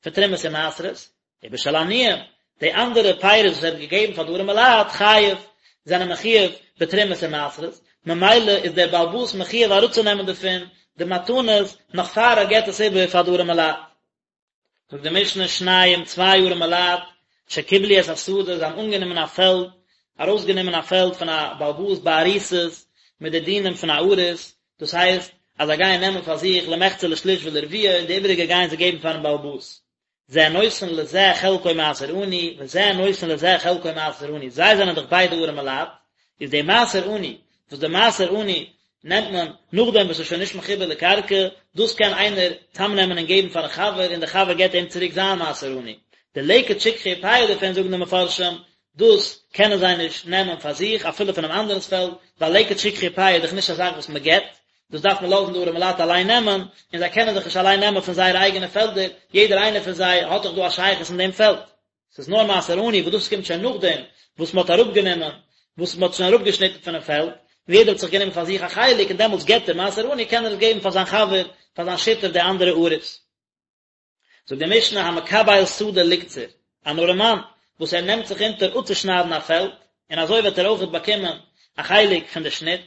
פון תרומות און מעשרות, ובשל עניים, די אנדערע פירות וואס ער האט געגעבן פאר די ארעמע לייט, חייב, זענען מחויב בתרומות און מעשרות, ממילא איז דער בעל הבית מחויב אראפצונעמען דערפון די מתנות נאך פאר ער געבט עס איבער פאר די ארעמע לייט. זאגט די משנה שניים, צוויי ארעמע לייט, שקיבלו את השדה, זיי האבן אנגענומען א פעלד, ארויסגענומען א פעלד פון א בעל הבית באריסות, מיט די דינים פון א אריס, דאס הייסט אז זיי גייען נעמען פאר זיך למחצה לשליש ולרביע און די איבעריגע גייען זיי געבן פארן בעל הבית. זה נותן לזה חלקו מעשר עני, וזה נותן לזה חלקו מעשר עני, זיי זענען דאך ביידע ארעמע לייט, איז די מעשר עני, וואס די מעשר עני נעמט מען נאכדעם וואס איז שוין נישט מחובר לקרקע, דאס קען איינער צאמנעמען און געבן פארן חבר, און דער חבר געבט אים צוריק זיין מעשר עני. די לקט שכחה ופאה דערפון זאגן די מפרשים, דאס קענען זיי נישט נעמען פאר זיך אפילו פונעם אנדערנס פעלד, ווייל לקט שכחה ופאה איז דאך נישט א זאך וואס מען געבט, דאס דארף מען לאזן די ארעמע לייט אליין נעמען, און זיי קענען דאך נישט אליין נעמען פון זייערע אייגענע פעלדער, יעדער איינער פון זיי האט דאך דא א שייכות אין דעם פעלד. ס'איז נאר מעשר עני וואס דאס קומט שוין נאכדעם וואס מ'האט אראפגענומען, וואס מ'האט שוין אראפגעשניטן פונעם פעלד, און יעדער האט זיך גענומען פאר זיך א חלק, און דעמאלטס געבט ער מעשר עני, קען ער עס געבן פאר זיין חבר, פאר זיין שותף די אנדערע אריס. זאגט די משנה המקבל שדה לקצור, אן ארעמאן וואס ער נעמט זיך אונטער אפצושניידן א פעלד, און אזוי וועט ער אויכעט באקומען א חלק פון די שניט,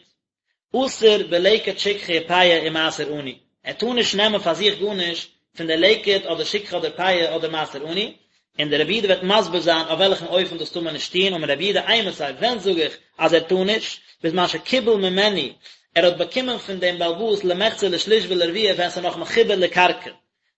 אסור בלקט שכחה ופאה ומעשר עני, ער טאר נישט נעמען פאר זיך גארנישט פון די לקט אדער שכחה אדער פאה אדער מעשר עני, און דער רבי יהודה וועט מסביר זיין אויף וועלכן אופן דאס טאר מען נישט טון, אמר רבי יהודה אימתי, ווען זאג איך אז ער טאר נישט, בזמן שקיבל ממנו, ער האט באקומען פון דעם בעל הבית למחצה לשליש ולרביע ווען ס'איז נאך מחובר לקרקע,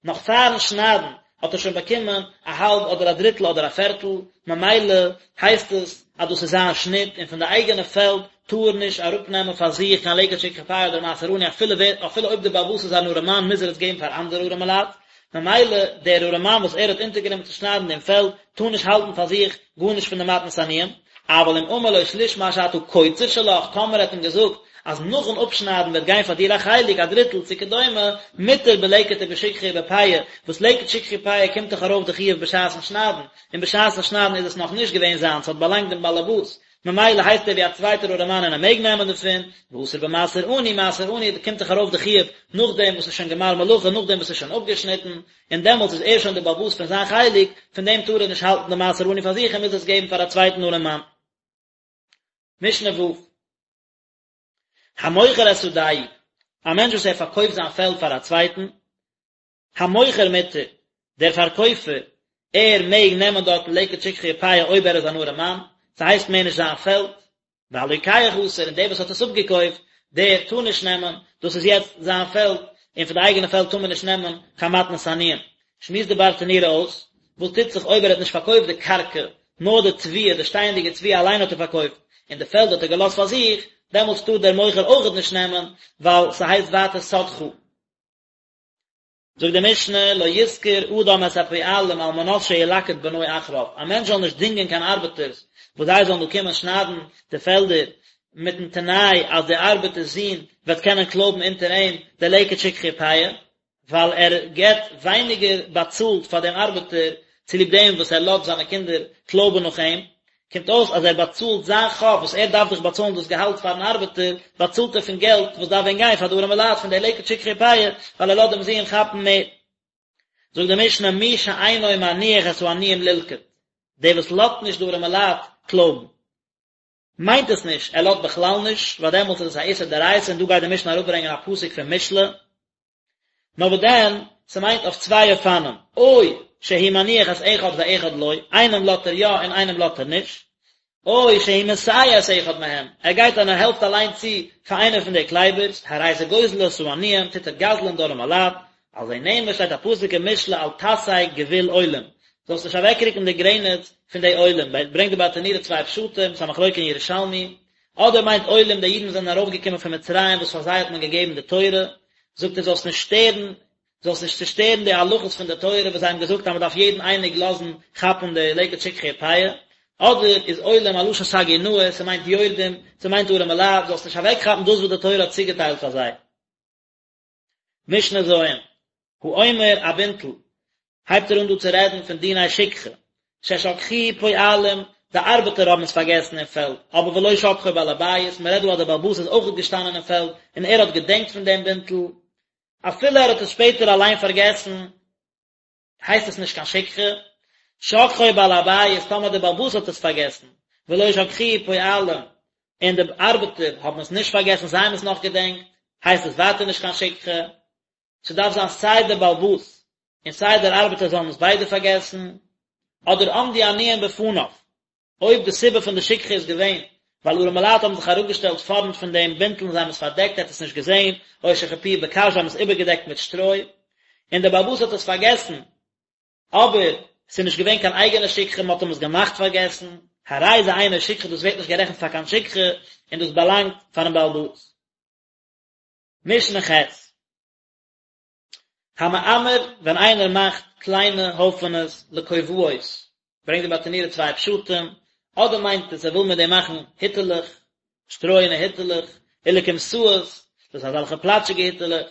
נאך פארן שניידן האט ער שוין באקומען א האלב אדער א דריטל אדער א פערטל, ממילא הייסט עס אז דאס איז זיין שניט, און פון די אייגענע פעלד טאר ער נישט אראפנעמען פאר זיך קיין לקט שכחה פאה אדער מעשר עני אפילו ווער אפילו אויב דער בעל הבית איז אן ארעמאן מוז ער עס געבן פאר אנדערע ארעמעלייט, ממילא דער ארעמאן וואס ער האט אונטערגענומען צו שניידן דעם פעלד טאר נישט האלטן פאר זיך גארנישט פון די מתנות עניים, אבל אם אמר לו שליש מה שאתה קוצר שלך, טאמער ער האט אים געזאגט אז נאכן אפשניידן וועט גיין פאר דיר א חלק, א דריטל, צו כדומה, מותר בלקט ובשכחה ובפאה, וואס לקט שכחה ופאה קומט דאך ארויף די חיוב בשעת'ן שניידן, און בשעת'ן שניידן איז עס נאך נישט געווען זיינס, ס'האט באלאנגט דעם באלעבאס, ממילא הייסט ער ווי א צווייטער ארעמאן און ער מעג נעמען דערפון, ואסור במעשר עני, מעשר עני קומט דאך ארויף די חיוב נאכדעם וואס ס'איז שוין גמר מלאכה, נאכדעם וואס ס'איז שוין אפגעשניטן, און דעמאלטס איז ער שוין דער בעל הבית פון זיין חלק, פון דעם טאר ער נישט האלטן די מעשר עני פאר זיך, ער מוז עס געבן פאר א צווייטן ארעמאן. משנה ו'. המוכר את שדהו, א מענטש וואס ער פארקויפט זיין פעלד פאר א צווייטן, המוכר מותר, דער פארקויפער, ער מעג נעמען דארטן לקט שכחה ופאה אויב ער איז אן ארעמאן, ס'הייסט מער נישט זיין פעלד, והלוקח אסור, און דער וואס האט עס אפגעקויפט, דער טאר נישט נעמען, דאס איז יעצט זיין פעלד, און פון די אייגענע פעלד טאר מען נישט נעמען קיין מתנת עניים. שמועסט די ברטנורא אויס, וואס טוט זיך אויב ער האט נישט פארקויפט די קרקע, נאר די תבואה, די שטייענדיגע תבואה אליין האט ער פארקויפט, און די פעלד האט ער געלאזט פאר זיך, דעמאלטס טאר דער מוכר אויכעט נישט נעמען, ווייל ס'הייסט ווייטער שדך. זאגט די משנה, לא ישכור אדם את הפועלים על מנת שילקט בנו אחריו, א מענטש זאל נישט דינגען קיין ארבעטערס וואס זיי זאלן דא קומען שניידן די פעלדער, מיטן תנאי אז דער ארבעטער'ס זון וועט קענען קלויבן אונטער אים די לקט שכחה ופאה, ווייל ער געבט ווייניגער באצאלט פאר דעם ארבעטער צוליב דעם וואס ער לאזט זיינע קינדער קלויבן נאך אים, קומט אויס אז ער באצאלט זיין חוב וואס ער דארף דאך באצאלן דאס געהאלט פארן ארבעטער, באצאלט ער פון געלט וואס דארף ווען גיין פאר די ארעמע לייט פון די לקט שכחה ופאה, ווייל ער לאזט דעם זוהן כאפן מער. זאגט די משנה מי שאינו מניח את העניים ללקוט, דער וואס לאזט נישט די ארעמע לייט קלויבן, מיינט עס נישט ער לאזט בכלל נישט, ווייל דעמאלטס איז עס א איסור דאורייתא און דא גייט די משנה אראפברענגען א פסוק פון משלי, נאר וואס דען, ס'מיינט אויף צוויי אופנים, או שהוא מניח את אחד ואחד לא, איינעם לאזט ער יא און איינעם לאזט ער נישט, או שהוא מסייע את אחד מהם, ער גייט און ער העלפט אליין צו פאר איינער פון די קלייבערס, הרי זה גוזל את העניים, טוט ער גזל'ען די ארעמע לייט, על זה נאמר שטייט א פסוק אין משלי אל תסג גבול עולים, זאלסט נישט אוועקרוקן די גרעניץ פון די עולים, ברענגט די ברטנורא צוויי פשטים, ס'איז א מחלוקה אין ירושלמי, אדער מיינט עולים די אידן וואס זענען ארויפגעקומען פון מצרים וואס פאר זיי האט מען געגעבן די תורה, זאגט ער זאלסט נישט שטערן, זאלסט נישט צושטערן די הלכות פון די תורה וואס זיי האבן געזאגט אז מען דארף יעדן אייניג לאזן כאפן די לקט שכחה ופאה, אדער איז עולים א לשון סגי נהור, ס'מיינט יורדים, ס'מיינט ארעמע לייט, זאלסט נישט אוועקכאפן דאס וואס די תורה האט צוגעטיילט פאר זיי. משנה ז', העומר א בינטל, הייבט ער אן דא צו רעדן פון דיני שכחה, ששכחוהו פועלים, די ארבעטער האבן עס פארגעסן אין פעלד, אבער ולא שכחו בעל הבית, מען רעדט דא אז דער בעל הבית איז אויכעט געשטאנען אין פעלד, און ער האט געדענקט פון דעם בינטל, אפילו ער האט עס שפעטער אליין פארגעסן, הייסט עס נישט קיין שכחה, שכחו בעל הבית, טאמער דער בעל הבית האט עס פארגעסן, ולא שכחוהו פועלים, און די ארבעטער האבן עס נישט פארגעסן, זיי האבן עס נאך געדענקט, הייסט עס ווייטער נישט קיין שכחה. ס'דארף זיין סיי דער בעל הבית און סיי דער ארבעטער זאלן עס ביידע פארגעסן, אדער עמדו עניים בפניו, אויב די סיבה פון די שכחה איז געווען ווייל ארעמעלייט האבן זיך אראפגעשטעלט פארנט פון דעם בינטל און זיי האבן עס פארדעקט ער האט עס נישט געזען, או שחיפוהו בקש זיי האבן עס איבערגעדעקט מיט שטרוי, און דער בעל הבית האט עס פארגעסן. אבער ס'איז נישט געווען קיין אייגענע שכחה, מ'האט אים עס געמאכט פארגעסן, הרי זה אינו שכחה, דאס ווערט נישט גערעכנט פאר קיין שכחה, און דאס באלאנגט פארן בעל הבית. משנה ח'. המעמר, ווען איינער מאכט קליינע הויפענעס לכובעות, ברענגט די ברטנורא צוויי פשטים, אדער מיינט עס ער וויל מיט דעם מאכן היטעלעך, שטרויענע היטעלעך, ולכומסאות, דאס איז אזעלכע פלאטשיגע היטעלעך,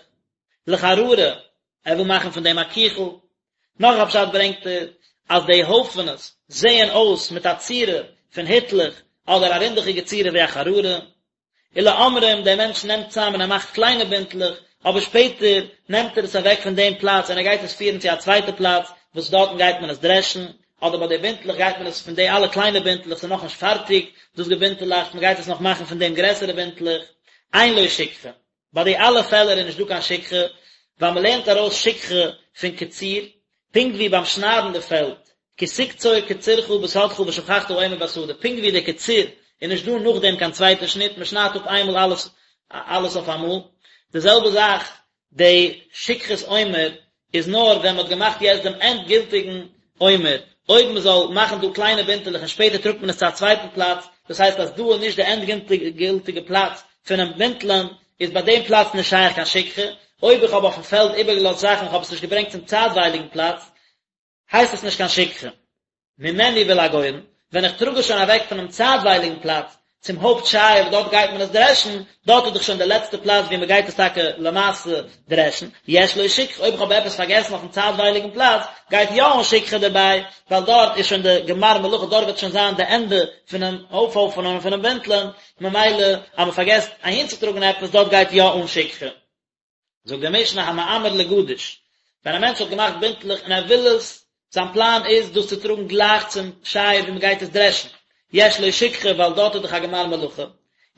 לחררה, ער וויל מאכן פון דעם א קיכל. נאך א פשט ברענגט ער, אז די הויפענעס זעען אויס מיט א צורה פון היטלעך, אדער א רינדעכיגע צורה ווי א חררה. ולאומרים, דער מענטש נעמט צאם און ער מאכט קליינע בינטלעך, אבער שפעטער נעמט ער עס אוועק פון דעם פלאץ און ער גייט עס פירן צו א צווייטע פלאץ וואס דארטן גייט מען עס דרעשן, אדער ביי די בינטלעך גייט מען עס פון די אלע קליינע בינטלעך ס'איז נאכנישט פארטיג דאס געבינטעלעכץ, מען גייט עס נאך מאכן פון דעם גרעסערע בינטלעך, אין לו שכחה. ביי די אלע פעלער איז נישט דא קיין שכחה, ווייל מען לערנט ארויס שכחה פון קציר, פונקט ווי ביים שניידן די פעלד, כי תקצור קצירך בשדך ושכחת עומר בשדה, פונקט ווי די קציר איז נישט דא נאכדעם קיין צווייטע שניט, מען שניידט אפ איינמאל אלעס אלעס אויף אמאל, די זעלבע זאך די שכחת עומר איז נאר ווען מען האט געמאכט יעצט דעם ענדגילטיגן עומר, אויב מען זאל מאכן דא קליינע בינטעלעך און שפעטער טראגט מען עס צו א צווייטן פלאץ, דאס הייסט אז דא איז נישט די ענדגילטיגע פלאץ פונעם בינטלען, איז ביי דעם פלאץ נישט שייך קיין שכחה, אויב איך האב אויפן פעלד איבערגעלאזט זאכן און כ'האב עס נישט געברענגט צום צייטווייליגן פלאץ, הייסט עס נישט קיין שכחה. ממנו ולגורן, ווען איך טראג עס שוין אוועק פונעם צייטווייליגן פלאץ צום הויפט שייער וואס דארט גייט מען עס דרעשן, דארט איז דאך שוין די לעצטע פלאץ וואו מען גייט עס טאקע למעשה דרעשן, יש לו שכחה, אויב איך האב עפעס פארגעסן אויפן צייטווייליגן פלאץ, גייט יא אן שכחה דערביי, ווייל דארט איז שוין די גמר מלאכה, דארט וועט שוין זיין די ענדע פונעם אויפהויפענען און פונעם בינטלען, ממילא אז מען פארגעסט אהינצוטראגן עפעס, דארט גייט יא אן שכחה. זאגט די משנה המעמר לגדיש, ווען א מענטש האט געמאכט בינטלעך און ער וויל עס, זיין פלאן איז דאס צו טראגן גלייך צום שייער ווי מען גייט עס דרעשן, יש לו שכחה ווייל דארט איז דאך א גמר מלאכה,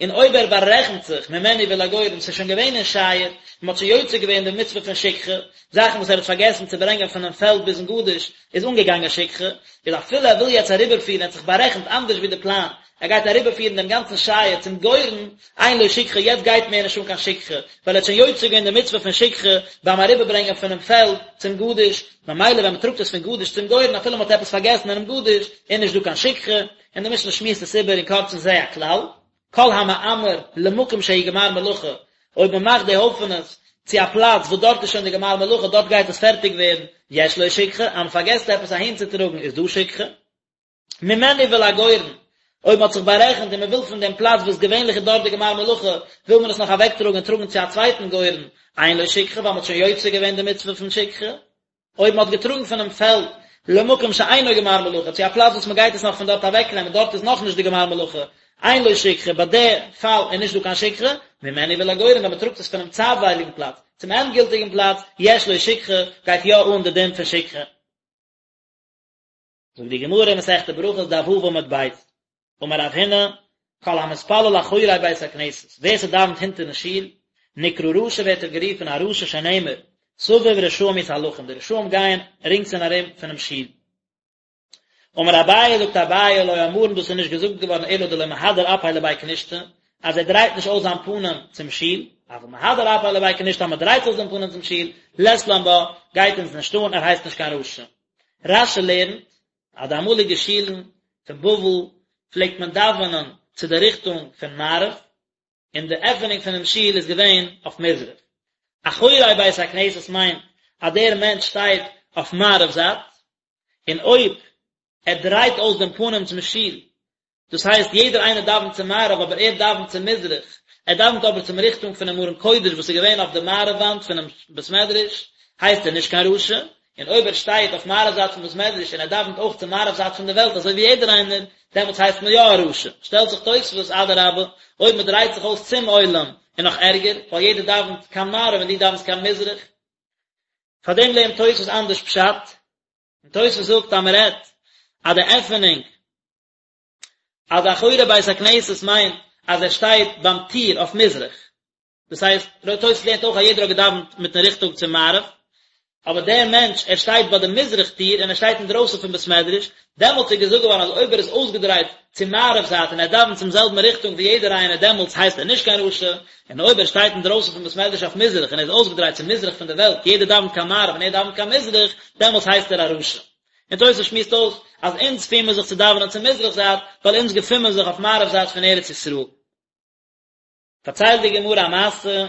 און אויב ער בארעכנט זיך ממנו ולגורן ס'איז שוין געווען אין שייער, און מ'האט שוין יוצא געווען די מצוה פון שכחה, זאכן וואס ער האט פארגעסן צו ברענגען פונעם פעלד ביזן גדיש איז אנגעגאנגען שכחה, איז אפילו ער וויל יעצט אריבערפירן ער האט זיך בארעכנט אנדערש ווי די פלאן, ער גייט אריבערפירן דעם גאנצן שייער צום גורן, אין לו שכחה, יעצט גייט מער נישט אן קיין שכחה, ווייל ער האט שוין יוצא געווען די מצוה פון שכחה ביים אריבערברענגען פונעם פעלד צום גדיש, ממילא ווען מען טראגט עס פון גדיש צום גורן אפילו מען האט עפעס פארגעסן אינעם גדיש, איז נישט דא קיין שכחה, און די משנה שמועסט עס איבער אין קורצן זה הכלל, כל המעמר למקום שהוא גמר מלאכה, אויב מען מאכט די הויפענעס צו א פלאץ וואס דארט איז שוין די גמר מלאכה, דארט גייט עס פערטיג ווערן, יש לו שכחה, אז מען פארגעסט עפעס אהינצוטראגן איז דא שכחה. ממנו ולגורן, אויב מען האט זיך בארעכנט און מען וויל פון דעם פלאץ וואס געווענליך איז דארט די גמר מלאכה, וויל מען עס נאך אוועקטראגן און טראגן צו א צווייטן גורן, אין לו שכחה, ווייל מען האט שוין יוצא געווען די מצוה פון שכחה. אויב מען האט געטראגן פונעם פעלד למקום שאינו גמר מלאכה, צו א פלאץ וואס מען גייט עס נאך פון דארט אוועקנעמען, דארט איז נאכנישט די גמר מלאכה, אין לו שכחה, ביי די פאל איז נישט דא קיין שכחה, ממנו ולגורן, ווען מען טראגט עס פונעם צייטווייליגן פלאץ צום ענדגילטיגן פלאץ, יש לו שכחה, גייט יא אן די דין פון שכחה. זאגט די גמרא אין מסכת ברכות דף ו' עמוד ב', אמר רב הונא, כל המתפלל אחורי בית הכנסת, ווער ס'דאווענט הינטערן שול, נקרא רשע ווערט ער גערופן א רשע שנאמר, סביב רשעים יתהלכון, די רשעים גייען רינגס און ארום פונעם שול. אמר אביי, זאגט אביי, לא אמרן דאס איז נישט געזאגט געווארן אלא דלא מהדר אפיה לבי כנישתא, אז ער דרייט נישט אויס זיין פנים צום שול, אבל מהדר אפיה לבי כנישתא אז מ'דרייט אויס דעם פנים צום שול, לית לן בה, גייט אונז נישט אן, ער הייסט נישט קיין רשע. רש"י לערנט אז די אמאליגע שילן פון בבל פלעגט מען דאווענען צו די ריכטונג פון מערב, און די עפענונג פונעם שול איז געווען אויף מזרח. אחורי בית הכנסת מיינט אז דער מענטש שטייט אויף מערב זייט, און אויב ער דרייט אויס דעם פנים צום שול דאס הייסט יעדער איינער דאווענט צו מערב אבער ער דאווענט צו מזרח, ער דאווענט אבער צום ריכטונג פונעם ארון קודש וואס איז געווען אויף די מערב וואנט פונעם בית מדרש, הייסט ער נישט קיין רשע, און אויב ער שטייט אויף מערב זייט פון בית מדרש און ער דאווענט אויך צום מערב זייט פון די וועלט אזוי ווי יעדער איינער, דעמאלטס הייסט מען יא א רשע. שטעלט זיך תוספות, אדרבה, אויב מען דרייט זיך אויס צום עולם איז נאך ערגער, ווייל יעדער דאווענט קיין מערב און דו דאווענסט קיין מזרח. פאר דעם לערנט תוספות אנדערש פשט, און תוספות זאגט אז מען רעדט אז די עפענונג אז אחורי בית הכנסת מיינט אז ער שטייט ביים טיר אויף מזרח, דאס הייסט תוספות לערנט אויך אז יעדער האט געדאווענט מיטן ריכטונג צו מערב, אבער דער מענטש ער שטייט ביי די מזרח טיר און ער שטייט אינדרויסן פון בית מדרש, דעמאלטס איז געזאגט געווארן אז אויב ער איז אויסגעדרייט צו מערב זייט און ער דאווענט צום זעלבן ריכטונג ווי יעדער איינער דעמאלטס הייסט ער נישט קיין רשע, און אויב ער שטייט אינדרויסן פון בית מדרש אויף מזרח און ער איז אויסגעדרייט צו מזרח פון די וועלט, יעדער דאווענט קיין מערב און ער דאווענט קיין מזרח, דעמאלטס הייסט ער א רשע. און תוס' שמועסט אויס אז אונז פירן מיר זיך צו דאווענען צו מזרח זייט ווייל אונז געפין מיר זיך אויף מערב זייט פון ארץ ישראל. פארציילט די גמרא א מעשה,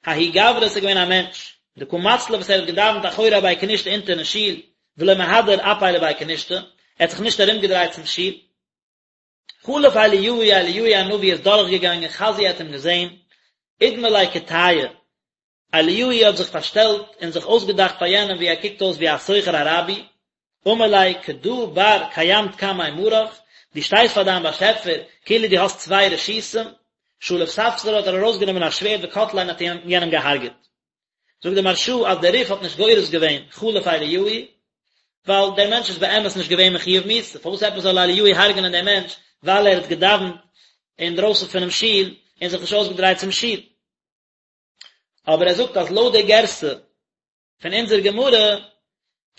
ההוא גברא ס'איז געווען א מענטש, דקא מצלי וואס ער האט געדאווענט אחורי בי כנישתא אונטערן שול, ולא מהדר אפיה לבי כנישתא, ער האט זיך נישט ארומגעדרייט צום שול. חלף אליהו אליהו הנביא איז דורכגעגאנגען חזייה האט אים געזען, אידמי ליה כטייעא, אליהו האט זיך פארשטעלט און זיך אויסגעדאכט פאר יענעם ווי ער קוקט אויס ווי א סוחר אראבי, אמר ליה כדא בר קיימת קמי מרך, דו שטייסט פאר דיין באשעפער כאילו דו האסט צוויי רשותים, שלף ספסרא האט ער ארויסגענומען א שווערד וקטליה און האט יענעם געהארגעט. זאגט דער מהרש"א אז דער רי"ף האט נישט גורס געווען חלף אליהו, ווייל דער מענטש איז באמת נישט געווען מחויב מיתה, פארוואס עפעס זאל אליהו הרג'נען דעם מענטש ווייל ער האט געדאווענט אינדרויסן פונעם שול און זיך נישט אויסגעדרייט צום שול? אבער ער זאגט אז לויט די גירסא פון אונזער גמרא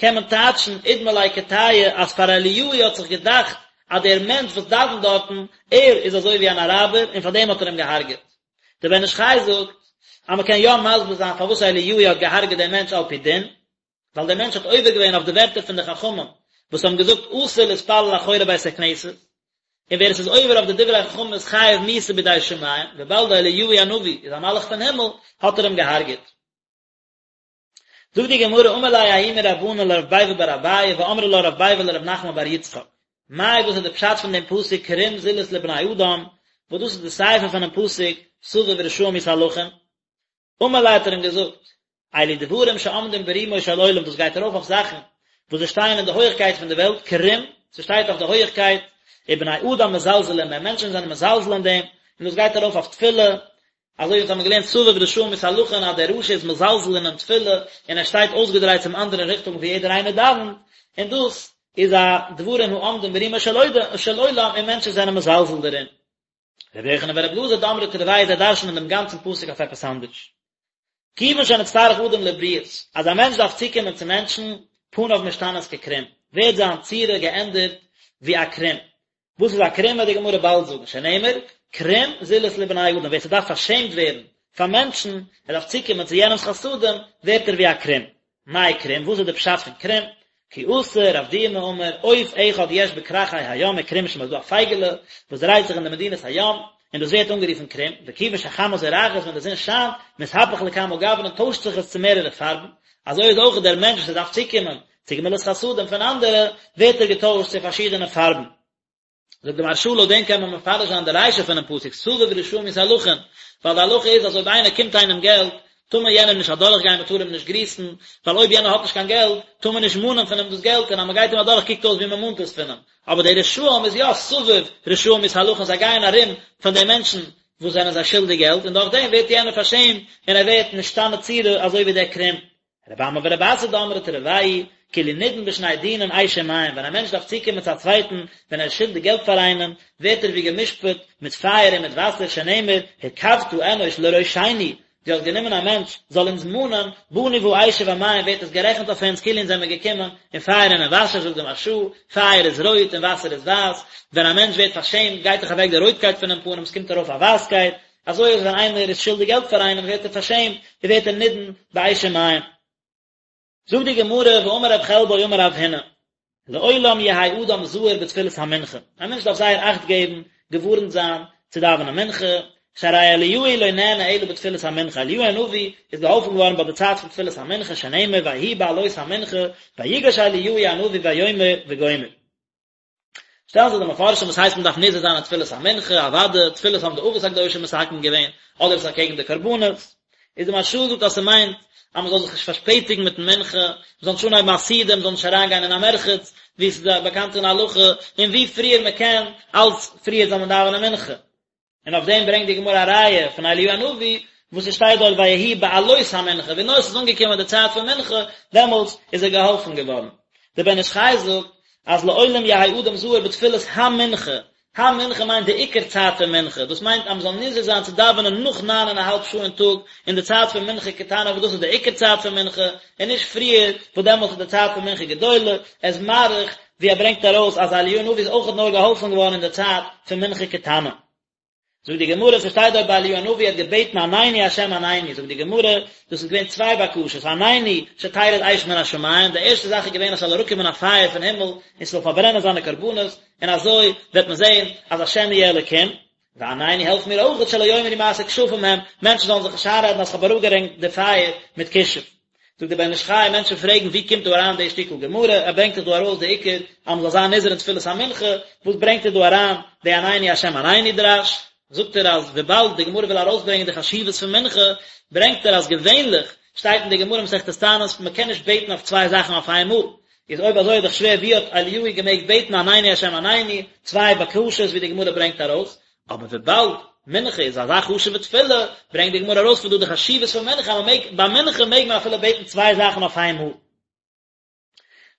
קען מען טייטשן אידמי ליה כטייעא אז פאר אליהו האט זיך געדאכט אז דער מענטש וואס דאווענט דארטן ער איז אזוי ווי אן אראבער און פאר דעם האט ער אים געהארגעט. דער בן איש חי זאגט אז מען קען יא מסביר זיין פארוואס אליהו האט געהארגעט דעם מענטש על פי דין, ווייל דער מענטש האט עובר געווען אויף די ווערטער פון די חכמים וואס האבן געזאגט אסור להתפלל אחורי בית הכנסת, און ווער עס איז עובר אויף די דברי חכמים איז חייב מיתה בידי שמים, וויבאלד אליהו הנביא איז א מלאך פון הימל האט ער אים געהארגעט. זאגט די גמרא אמר ליה ההוא מרבנן לרב ביבי בר אביי ואמרי לה רב ביבי לרב נחמן בר יצחק, מאי וואס איז די פשט פון דעם פסוק כרום זלות לבני אדם, וואס דאס איז די סיפא פונעם פסוק סביב רשעים יתהלכון, אמר ליה האט ער אים געזאגט, אלו דברים שעומדים ברומו של עולם דאס גייט ארויף אויף זאכן וואס זיי שטייען אין די הויכקייט פון די וועלט, כרום, ס'שטייט אויף די הויכקייט, ובני אדם מזלזלין בהם, מענטשן זענען מזלזל אין דעם, און דאס גייט ארויף אויף תפילה, אזוי ווי אונז האבן געלערנט סביב רשעים יתהלכון אז דער רשע איז מזלזל אינעם תפילה און ער שטייט אויסגעדרייט צום אנדערן ריכטונג ווי יעדער איינער דאווענט, און דאס איז א דברים העומדים ברומו של עולם און מענטשן זענען מזלזל דערין. רבי יוחנן ורבי אלעזר דאמרי תרוייהו זיי דרש'נען דעם גאנצן פסוק אויף עפעס אנדערש. כיוון שנצטרך אדם לבריות, אז א מענטש דארף צוקומען צו מענטשן, פניו משתנות ככרום, ווערט זיין צורה געענדערט ווי א כרום. וואס איז א כרום וועט די גמרא באלד זאגן, שנאמר, כרום זלות לבני אדם, ווער ס'דארף פארשעמט ווערן פאר מענטשן, ער דארף צוקומען צו יענעמ'ס חסדים, ווערט ער ווי א כרום. מאי כרום, וואס איז די פשט פון כרום? כי אתא רב דימי אמר, עוף אחד יש בכרכי הים וכרום שמו, ס'איז דא א פייגעלע וואס דרייט זיך אין די מדינת הים, און דאס ווערט אנגערופן כרום, וכיוון שהחמה זורחת ווען די זון שיינט, מתהפך לכמה גוונין טוישט זיך עס צו מערערע פארבן, אזוי איז אויך דער מענטש וואס ער דארף צוקומען צו גמילות חסדים פון אנדערע, ווערט ער געטוישט צו פארשידענע פארבן. זאגט די מהרש"א לויט דעם קען מען מפרש זיין די רישא פונעם פסוק סביב רשעים יתהלכון, ווייל די הלכה איז אז אויב איינער קומט איינעם געלט, טאר מען יענעם נישט אדורך גיין מען טאר אים נישט גריסן, ווייל אויב יענער האט נישט קיין געלט, טאר מען נישט מאנען פון אים דאס געלט און אז מען גייט אים אדורך קוקט אויס ווי מען מאנט עס פון אים, אבער די רשעים איז יא סביב רשעים יתהלכון זיי גייען ארום פון די מענטשן וואס זענען זיי שולדיג געלט און דורך דעם ווערט יענער פארשעמט און ער ווערט נשתנה צורה אזוי ווי דער כרום. רבי אמי ורבי אסי דאמרי תרוייהו, כאילו נידון בשני דינין אש ומים, ווען א מענטש דארף צוקומען צו א צווייטן, ווען ער איז שולדיג געלט פאר איינעם, ווערט ער ווי גע'משפט מיט פייער און מיט וואסער, שנאמר, הרכבת אנוש לראשנו, דו האסט גענומען א מענטש זאל אונז מאנען, באנו באש ובמים ווערט עס גערעכנט אויף אונז כאילו אונז זעמיר געקומען אין פייער און אין וואסער, זאגט די מהרש"א, פייער איז רויט און וואסער איז ווייס, ווען א מענטש ווערט פארשעמט גייט דאך אוועק די רויטקייט פונעם פנים, עס קומט ארויף א ווייסקייט, אזוי איז ווען איינער איז שולדיג געלט פאר איינעם ווערט ער פארשעמט און ווערט ער נידון באש ומים. זאגט די גמרא ואמר רב חלבו אמר רב הונא לעולם יהא אדם זהיר בתפילת המנחה, א מענטש דארף זייער אכט געבן, געווארנט זיין, צו דאווענען מנחה, שהרי אליהו לא נענה אלא בתפילת המנחה, אליהו הנביא איז געהאלפן געווארן ביי די צייט פון תפילת המנחה, שנאמר ויהי בעלות המנחה ויגש אליהו הנביא ויאמר וגומר. שטעלן זיך די מפרשים וואס הייסט מען דארף נזהר זיין אין תפילת המנחה, אוואדע, תפילות האבן די אבות הקדושים מתקן געווען, אדער עס איז אקעגן די קרבנות. איז די מהרש"א זאגט אז ס'מיינט אז מען זאל זיך נישט פארשפעטיגן מיטן מנחה, מען זאל נישט אנהייבן א סעודה, מען זאל נישט אריינגיין אין א מרחץ, ווי עס איז באקאנט אין הלכה, און ווי פריער מען קען, אלץ פריער זאל מען דאווענען מנחה. און אויף דעם ברענגט די גמרא א ראיה פון אליהו הנביא, וואס עס שטייט דארט ויהי בעלות המנחה, ווי נאר עס איז אנגעקומען די צייט פון מנחה, דעמאלטס איז ער געהאלפן געווארן. דער בן איש חי זאגט, אז לעולם יהא אדם זהיר בתפילת המנחה, המנחה מיינט די עיקר צייט פון מנחה, דאס מיינט אז מען זאל נזהר זיין צו דאווענען נאך ניין און א האלב שעה אין טאג, אין די צייט פון מנחה קטנה וואס דאס איז די עיקר צייט פון מנחה, און נישט פריער וואס דעמאלטס איז די צייט פון מנחה גדולה, ער איז מאריך ווי ער ברענגט ארויס אז אליהו הנביא איז אויכעט נאר געהאלפן געווארן אין די צייט פון מנחה קטנה. זאגט די גמרא, ס'שטייט דארט ביי אליהו הנביא האט געבעטן ענני השם ענני, זאגט די גמרא, דאס איז געווען צוויי בקשות, ענני שתרד אש מן השמים, די ערשטע זאך איז געווען אז ס'זאל אראפקומען א פייער פון הימל און ס'זאל פארברענען זיינע קרבנות, און אזוי וועט מען זען אז השם הוא האלוקים, וענני העלף מיר אויכעט שלא יאמרו מעשה כשפים הם, מענטשן זאלן זיך נישט איינרעדן אז כ'האב אראפגעברענגט די פייער מיט כישוף. זאגט דער בן איש חי, מענטשן פרעגן ווי קומט דא אריין די שטיקל גמרא, ער ברענגט דאך דא ארויס די עיקר אז מ'זאל זיין נזהר אין תפילת המנחה, וואס ברענגט ער דא אריין די ענני השם ענני דרש? זאגט ער אז וויבאלד די גמרא וויל ארויסברענגען די חשיבות פון מנחה, ברענגט ער אז געווענליך שטייט אין די גמרא מסכת תענית מ'קען נישט בעטן אויף צוויי זאכן אויף איינמאל, איז אויב אזוי איז דאך שווער ווי האט אליהו געמעגט בעטן ענני השם ענני, צוויי בקשות ווי די גמרא ברענגט ארויס, אבער וויבאלד מנחה איז אזא חשוב'ע תפילה, ברענגט די גמרא ארויס פון דא די חשיבות פון מנחה אז מען מעג ביי מנחה מעג מען אפילו בעטן צוויי זאכן אויף איינמאל.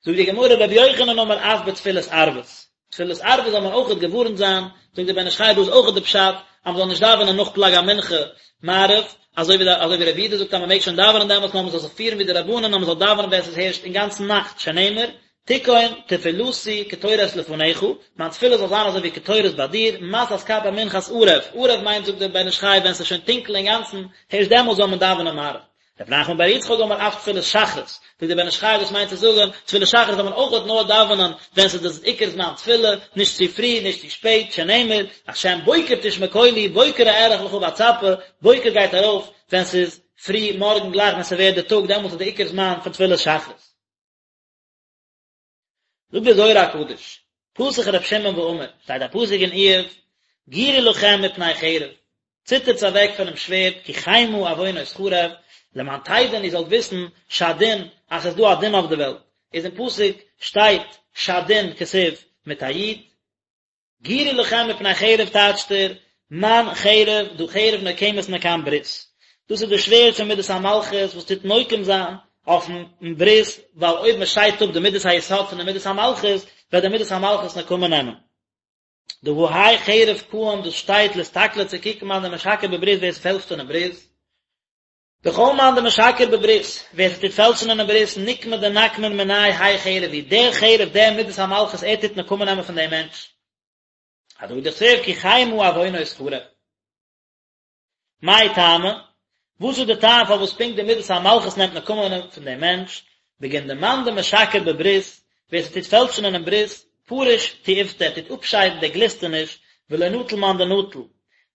זאגט די גמרא רבי יוחנן אמר אף בתפילת ערבית, תפילת ערבית זאל מען אויכעט געווארנט זיין, זאגט דער בן איש חי דא איז אויכעט די פשט אז מען זאל נישט דאווענען נאך פלג המנחה מעריב, אזוי ווי אזוי ווי רבי יהודה זאגט אז מען מעג שוין דאווענען דעמאלטס נאר מען זאל זיך פירן ווי די רבנן אז מען זאל דאווענען ווען עס איז הערשט אינגאנצן נאכט שנאמר תכון תפילתי קטורת לפניך, מיין תפילה זאל זיין אזוי ווי קטורת ביי דיר, משאת כפי מנחת ערב, ערב מיינט זאגט דער בן איש חי ווען עס איז שוין טונקל אינגאנצן, הערשט דעמאלטס זאל מען דאווענען מעריב. רב נחמן בר יצחק אמר אף תפילת שחרית, זאגט דער בן איש חי דאס מיינט צו זאגן, תפילת שחרית זאל מען אויכעט נאר דאווענען ווען ס'איז דאס עיקר זמן תפילה, נישט צו פרי נישט צו שפעט, שנאמר, השם בוקר תשמע קולי, בוקר אערך לך ואצפה, בוקר גייט ארויף ווען ס'איז פרי מארגן גלייך ווען ס'ווערט די טאג דעמאלטס איז די עיקר זמן פון תפילת שחרית. זאגט דער זוהר הקדוש, פתח ר' שמעון ואמר, שטייט א פסוק אין איוב, גורו לכם מפני חרב, ציטערטס אוועק פונעם שווערד, כי חמה עוונות חרב, למען תדעון איר זאלט וויסן, שדין, אז ס'איז דא א דין אויף די וועלט, איז אין פסוק שטייט שדין כתיב מיט א יוד, גורו לכם מפני חרב טייטשט ער, מאן חרב, דא חרב נוקמת נקם ברית. דאס איז די שווערד פון מידת המלכות וואס טוט נוקם זיין אויפן ברית, ווייל אויב מען שיידט אפ די מידת היסוד פון די מידת המלכות, וועט די מידת המלכות נקמה נעמען. דהא האי חרב קאים דאס שטייט לאסתכלא צו קוקן מאן דמשקר בברית ווער ס'פעלשט אינעם ברית. דכל מאן דמשקר בברית, ווער ס'טוט פעלשן אינעם ברית, נקמא דנקמין מיניה האי חרב הוא, דער חרב, דער מידת המלכות, ער טוט נקמה נעמען פון דעם מענטש. הדא הוא דכתיב כי חמה עוונות חרב. מאי טעמא? וואס איז די טעם פארוואס פונקט די מידת המלכות נעמט נקמה נעמען פון דעם מענטש? בגין דמאן דמשקר בברית, ווער ס'טוט פעלשן אינעם ברית, פריש תיעובתא, ער טוט אפשיידן די גליסטעניש, ולא נטיל מאן דנטיל.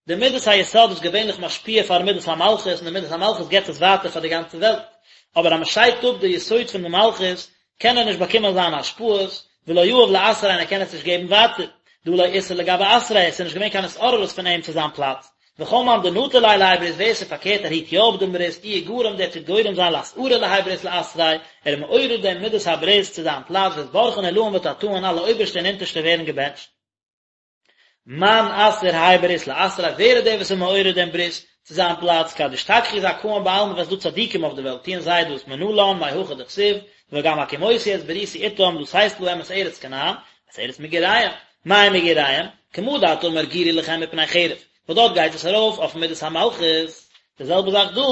די מידת היסוד איז געווענליך משפיע פארן מידת המלכות און די מידת המלכות געבט עס ווייטער פאר די גאנצע וועלט, אבער אז מען שיידט אפ די יסוד פון די מלכות, קען ער נישט באקומען זיינע השפעות, ולא יהיב לאתריה און ער קען עס נישט געבן ווייטער, דהא לא אתער לגבי אתריה, עס איז נישט געווען קיין התעוררות פון אים צו זיין פלאץ, וכל מאן דנטיל ליה להאי ברית ווער ס'איז פארקערט ער היט יא אפ דעם ברית, איהו גרים דער טוט גורם זיין לאתערא להאי ברית לאתריה, ער איז מעורר דעם מידת הברית צו זיין פלאץ ואתברכון עלאין ותתאין אלע אויבערשטע און אונטערשטע ווערן געבענטשט. מאן אתער האי ברית לאתריה, ווער איז דער וואס איז מעורר דעם ברית צו זיין פלאץ, כד אשתכחו זכאין בעלמא ווען ס'איז דא צדיקים אויף די וועלט טוען זיי דאס מנלן מהכא דכתיב וגם הקימותי את בריתי אתם לתת להם את ארץ כנען את ארץ מגוריהם, מאי מגוריהם? כמה דאת אמר גורו לכם מפני חרב, וואס דארט גייט עס ארויף אויף מידת המלכות, די זעלבע זאך דא,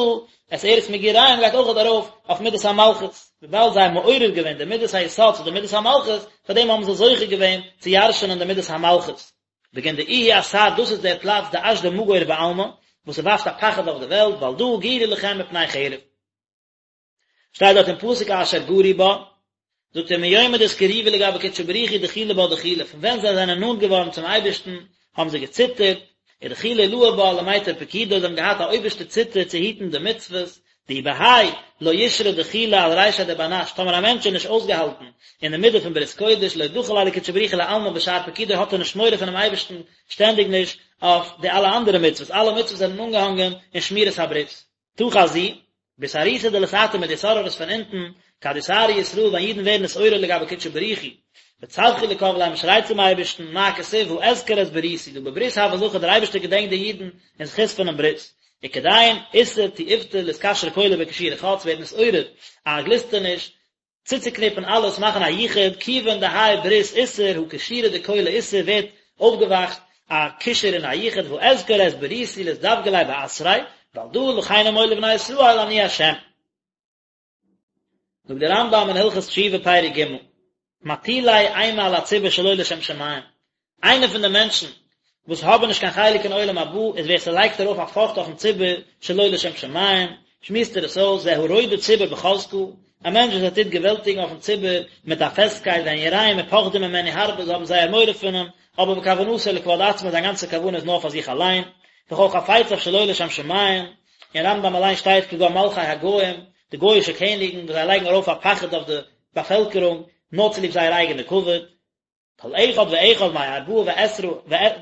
את ארץ מגוריהם גייט אויכעט ארויף אויף מידת המלכות, וויבאלד זיי האבן מעורר געווען די מידת היסוד צו די מידת המלכות, פאר דעם האבן זיי זוכה געווען צו ירש'ענען די מידת המלכות. בגין דאיהו אתר דאס איז דער פלאץ דאשדי מגור בעלמא, וואס ס'ווארפט א פחד אויף די וועלט, ועל דא גורו לכם מפני חרב. שטייט דארט אין פסוק אשר גרו בה, זאגט ער מיומא דאתקריבו לגבי קודשא בריך הוא דחילו בה דחילא, פון ווען זיי זענען נאנט געווארן צום אייבערשטן האבן זיי געציטערט, ודחילא עילאה בה למיטר פקודי, זיי האבן געהאט א אויבערשטע ציטער צו היטן די מצוות, דאי בהאי לא ישרי דחילא על רישיה דבר נש, טאמער א מענטש איז נישט אויסגעהאלטן אין די מידה פון ברית קודש, לא דחיל ליה לקודשא בריך הוא לעלמא בשאר פקודי האט ער נישט מורא פונעם אייבערשטן שטענדיג נישט אויף די אלע אנדערע מצוות, אלע מצוות זענען אנגעהאנגען אין שמירת הברית. תא חזי, באתערותא דלתתא מיט די התעוררות פון אונטן, כד אתערו ישראל ווען אידן ווערן נתעורר לגבי קודשא בריך הוא, וצווחי לקבליה מען שרייט צום אייבערשטן, מה כתיב ואזכר את בריתי, דהא בברית הוה זכי דער אייבערשטער געדענקט די אידן אין זכות פונעם ברית, וכדין אתער תיעובתא לאתקשרא כולא בקושרא חד ס'ווערט נתעורר א גליסטעניש צוצוקניפן אלעס מאכן א יחוד, כיוון דהאי ברית אתער הא קושרא דכולא אתער ווערט אויפגעוואכט א קשר און א יחוד ואזכר את בריתי לאזדווגא ליה באתריה, ועל דא לכן אמור לבני ישראל אני השם. זאגט דער רמב"ם אין הלכות תשובה פרק ג', מטילי אימה על הציבור שלא לשם שמים, איינער פון די מענטשן. וואס האבן נישט קיין חלק אין עולם הבא איז ווער ס'לייגט ארויף א פארכט אויפן ציבור שלא לשם שמים, שמועסט ער עס אויס, זה הרודה ציבור בחזקה, א מענטש וואס ער טוט געוועלטיגן אויפן ציבור מיט א פעסטקייט והן יראים ופוחדים ממנו הרבה, זיי האבן זייער מורא פון אים, אבער וכוונתו לכבוד עצמו זיין גאנצע כוונה איז נאר פאר זיך אליין, וכל חפציו שלא לשם שמים, אין רמב"ם אליין שטייט כגון מלכי הגוים, די גוי'אישע קעניגן וואס זיי לייגן ארויף א פחד אויף די באפעלקערונג נאר צוליב זייער אייגענע כבוד. כל אחד ואחד מארבעה ועשרה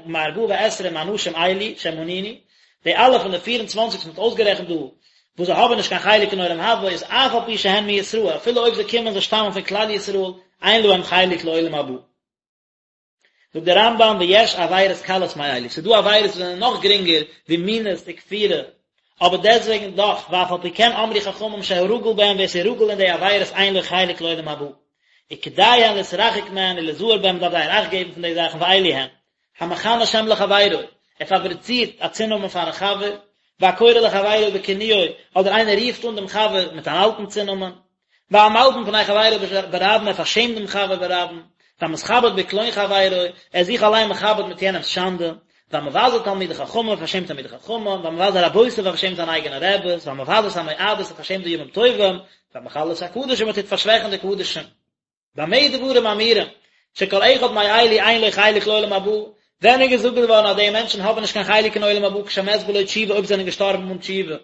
מארבעה ועשרים אנשים אלו שמנינו, די אלע פון די פיר און צוואנציג וואס מען האט אויסגערעכנט דא, וואס זיי האבן נישט קיין חלק אין עולם הבא, איז אף על פי שהן מישראל, אפילו אויב זיי קומען זיי שטאמען פון כלל ישראל, אין להם חלק לעולם הבא. זאגט דער רמב"ם ויש עבירות קלות מאלו, ס'איז דא עבירות וואס זענען נאך גרינגער ווי מינות וכפירה, אבער דעסטוועגן דאך, ואף על פי כן אמרו חכמים שהרגיל בהם ווער ס'איז רגיל אין די עבירות אין לו חלק לעולם הבא. וכדאי הן להתרחק מהן ולזהר בהן מ'דארף זייער אכט געבן פון די זאכן ואלו הן, המכנה שם לחבירו, ער פאבריצירט א צונאמען פארן חבר, והקורא לחבירו בכינויו, אדער איינער רופט אן דעם חבר מיט אן אלטן צונאמען, והמלבין פני חברו ברבים, ער פארשעמט דעם חבר ברבים, והמתכבד בקלון חברו, ער איז זיך אליין מכבד מיט יענעמ'ס שאנדע, והמבזה תלמידי חכמים, ער פארשעמט תלמידי חכמים, והמבזה רבותיו, ער פארשעמט זיינע אייגענע רעבעס, והמבזה את המועדות, ער פארשעמט די ימים טובים, והמחלל את הקדשים, ער טוט פארשוועכן די קדשים. במה דברים אמורים, שכל אחד מאלו אין לו חלק לעולם הבא, ווען איז געזאגט געווארן אז די מענטשן האבן נישט קיין חלק אין עולם הבא כשמת בלא תשובה אויב זיי זענען געשטארבן אן תשובה,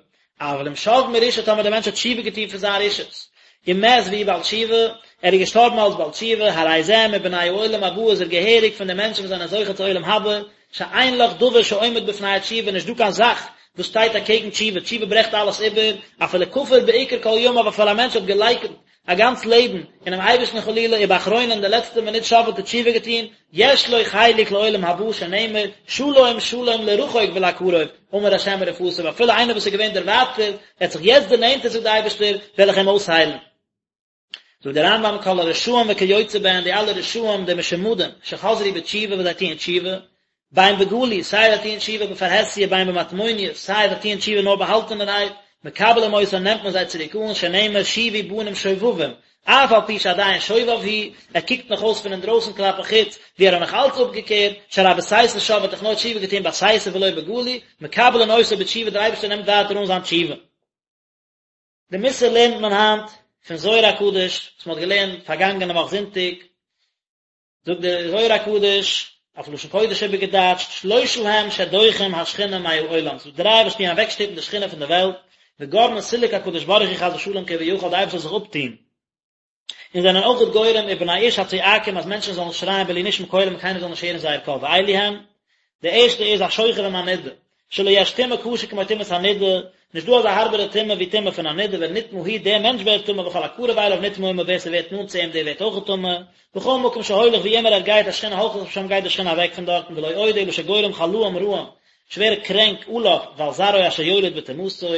אבל אם שב מרשעו טאמער דער מענטש האט תשובה געטון פון זיין רשעות, ומת והוא בעל תשובה, ער איז געשטארבן אלס בעל תשובה, הרי זה מבני העולם הבא איז ער געהעריג פון די מענטשן וואס זענען זוכה צו עולם הבא, שאין לך דבר שעומד בפני התשובה, נישט דא קיין זאך וואס שטייט אקעגן תשובה, תשובה ברעכט אלעס איבער, אפילו כפר בעיקר כל ימיו אפילו א מענטש האט געלייקנט א גאנץ לעבן אינעם אייבערשטן חלילה ובאחרונה אין די לעצטע מינוט שב האט ער תשובה געטון, יש לו חלק לעולם הבא שנאמר שלום שלום לרחוק ולקרוב אמר ה' ורפאתיו אפילו איינער וואס איז געווען דערווייטערט ער האט זיך יעצט דערנענטערט זאגט די אייבערשטער וועל איך אים אויסהיילן. זאגט דער רמב"ם כל הרשעים וכיוצא בהן די אלע רשעים די משומדים שחזרו בתשובה וואס זיי טוען תשובה בין בגלוי, סיי זיי טוען תשובה בפרהסיא בין במטמוניות, סיי זיי טוען תשובה נאר באהאלטענערהייט, מקבלים אותן נעמט מען זיי צוריק אן, שנאמר שובו בנים שובבים, אף על פי שעדיין שובב הוא, ער קוקט נאך אויס פון אינדרויסן כלפי חוץ, ווי ער האט נאך אלץ אפגעקערט, שהרי בסתר שב האט דאך נאר תשובה געטון בסתר ולא בגלוי, מקבלין אותו בתשובה דער אייבערשטער נעמט ווייטער אן זיין תשובה. די מוסר לערנט מען היינט פון זוהר הקדוש וואס מען האט געלערנט פארגאנגענע וואך זונטאג, זאגט דער זוהר הקדוש, אויף לשון קודש איבערגעטייטשט, שלושה הם שדוחים השכינה מהעולם, ס'איז דא דריי וואס טוען אוועקשטופן די שכינה פון די וועלט, וגורמין סילוק הקדוש ברוך הוא חס ושלום כביכול, די אייבערשטער זאל זיך אפטון, און זענען אויך גורם ובני איש הצועקים אז מענטשן זאלן שרייען בלי נשמע קולם און קיינער זאל נישט הערן זייער קול, ואלו הם, די ערשטע איז השוכב עם הנידה, שלא יש טומאה קשה כמו טומאת הנידה, נישט דא אזא הארבערע טומאה ווי טומאה פון א נידה, ונטמא הוא, דער מענטש ווערט טמא וכל הקרוב אליו נטמא עמו, ווער ס'ווערט נאנט צו אים דער ווערט אויך טמא, בכל מקום שהולך ווי אימער ער גייט השכינה הולכת משם גייט די שכינה אוועק פון דארטן ולא עוד אלא שגורם חלאים רעים, שווערע קרענק עליו ועל זרעו אשר יולד בטומאתו,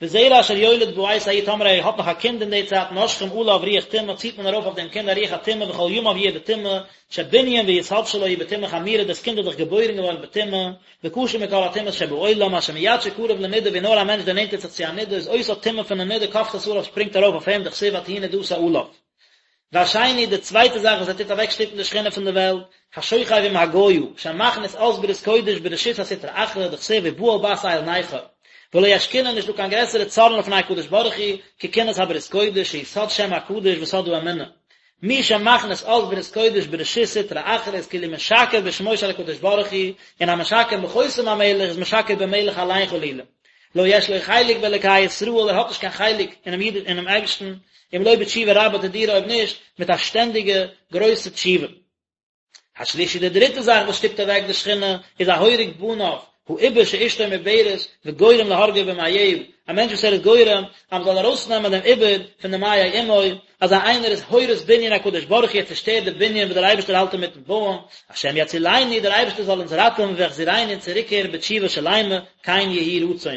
וזרע אשר יולד בעת ההיא טאמער ער האט נאך א קינד אין די צייט מושכים עליו רוח טומאה ציט מען ארויף אויף דעם קינד א רוח הטומאה וכל ימיו יהיה בטומאה, שבנין ויסוד שלו הוא בטומאה חמורה דאס קינד איז דאך געבוירן געווארן בטומאה, וקשה מכל הטומאות שבעולם, אשר מיד שקרב לנידה ווי נאר א מענטש דערנענטערט זיך צו א נידה איז אותה טומאה פון די נידה קופצת עליו שפרינגט ארויף אויף אים דכתיב ותהי נדתה עליו. והשני, די צווייטע זאך וואס ער טוט אוועקשטופן די שכינה פון די וועלט, השוכב עם הגויה, שמכניס אות ברית קודש ברשות הסטרא אחרא, דכתיב ובעל בת אל נכר. ולא יש קנאה נישט דא קיין גרעסערע צארן לפני הקדוש ברוך הוא, כקנאת הברית קודש, שהיא סוד שם הקדוש וסוד האמונה. מי שמכניס אות ברית קודש ברשות סטרא אחרא איז כאילו משקר בשמו של הקדוש ברוך הוא, און המשקר בחותם המלך איז משקר במלך אליין חלילה. לא יש לו חלק באלוקי ישראל, ער האט נישט קיין חלק אינעם איד אינעם אייבערשטן, אם לא בתשובה רבה תדירה אויב נישט מיט א שטענדיגע גרויסע תשובה. השלישי די דריטע זאך וואס שטופט אוועק די שכינה איז ההורג בניו, העובר שאשתו מעוברת וגורם להורגו במעיה, א מענטש וואס ער איז גורם אז מען זאל ארויסנעמען דעם עובר פון די מעי אמו, אזא איינער איז הורס בנין הקדוש ברוך הוא ער צעשטערט די בנין וואס דער אייבערשטער האלט אינמיטן בויען, השם יצילנו דער אייבערשטער זאל אונז ראטעווען ויחזירנו און צוריקקערן בתשובה שלימה, כן יהי רצון.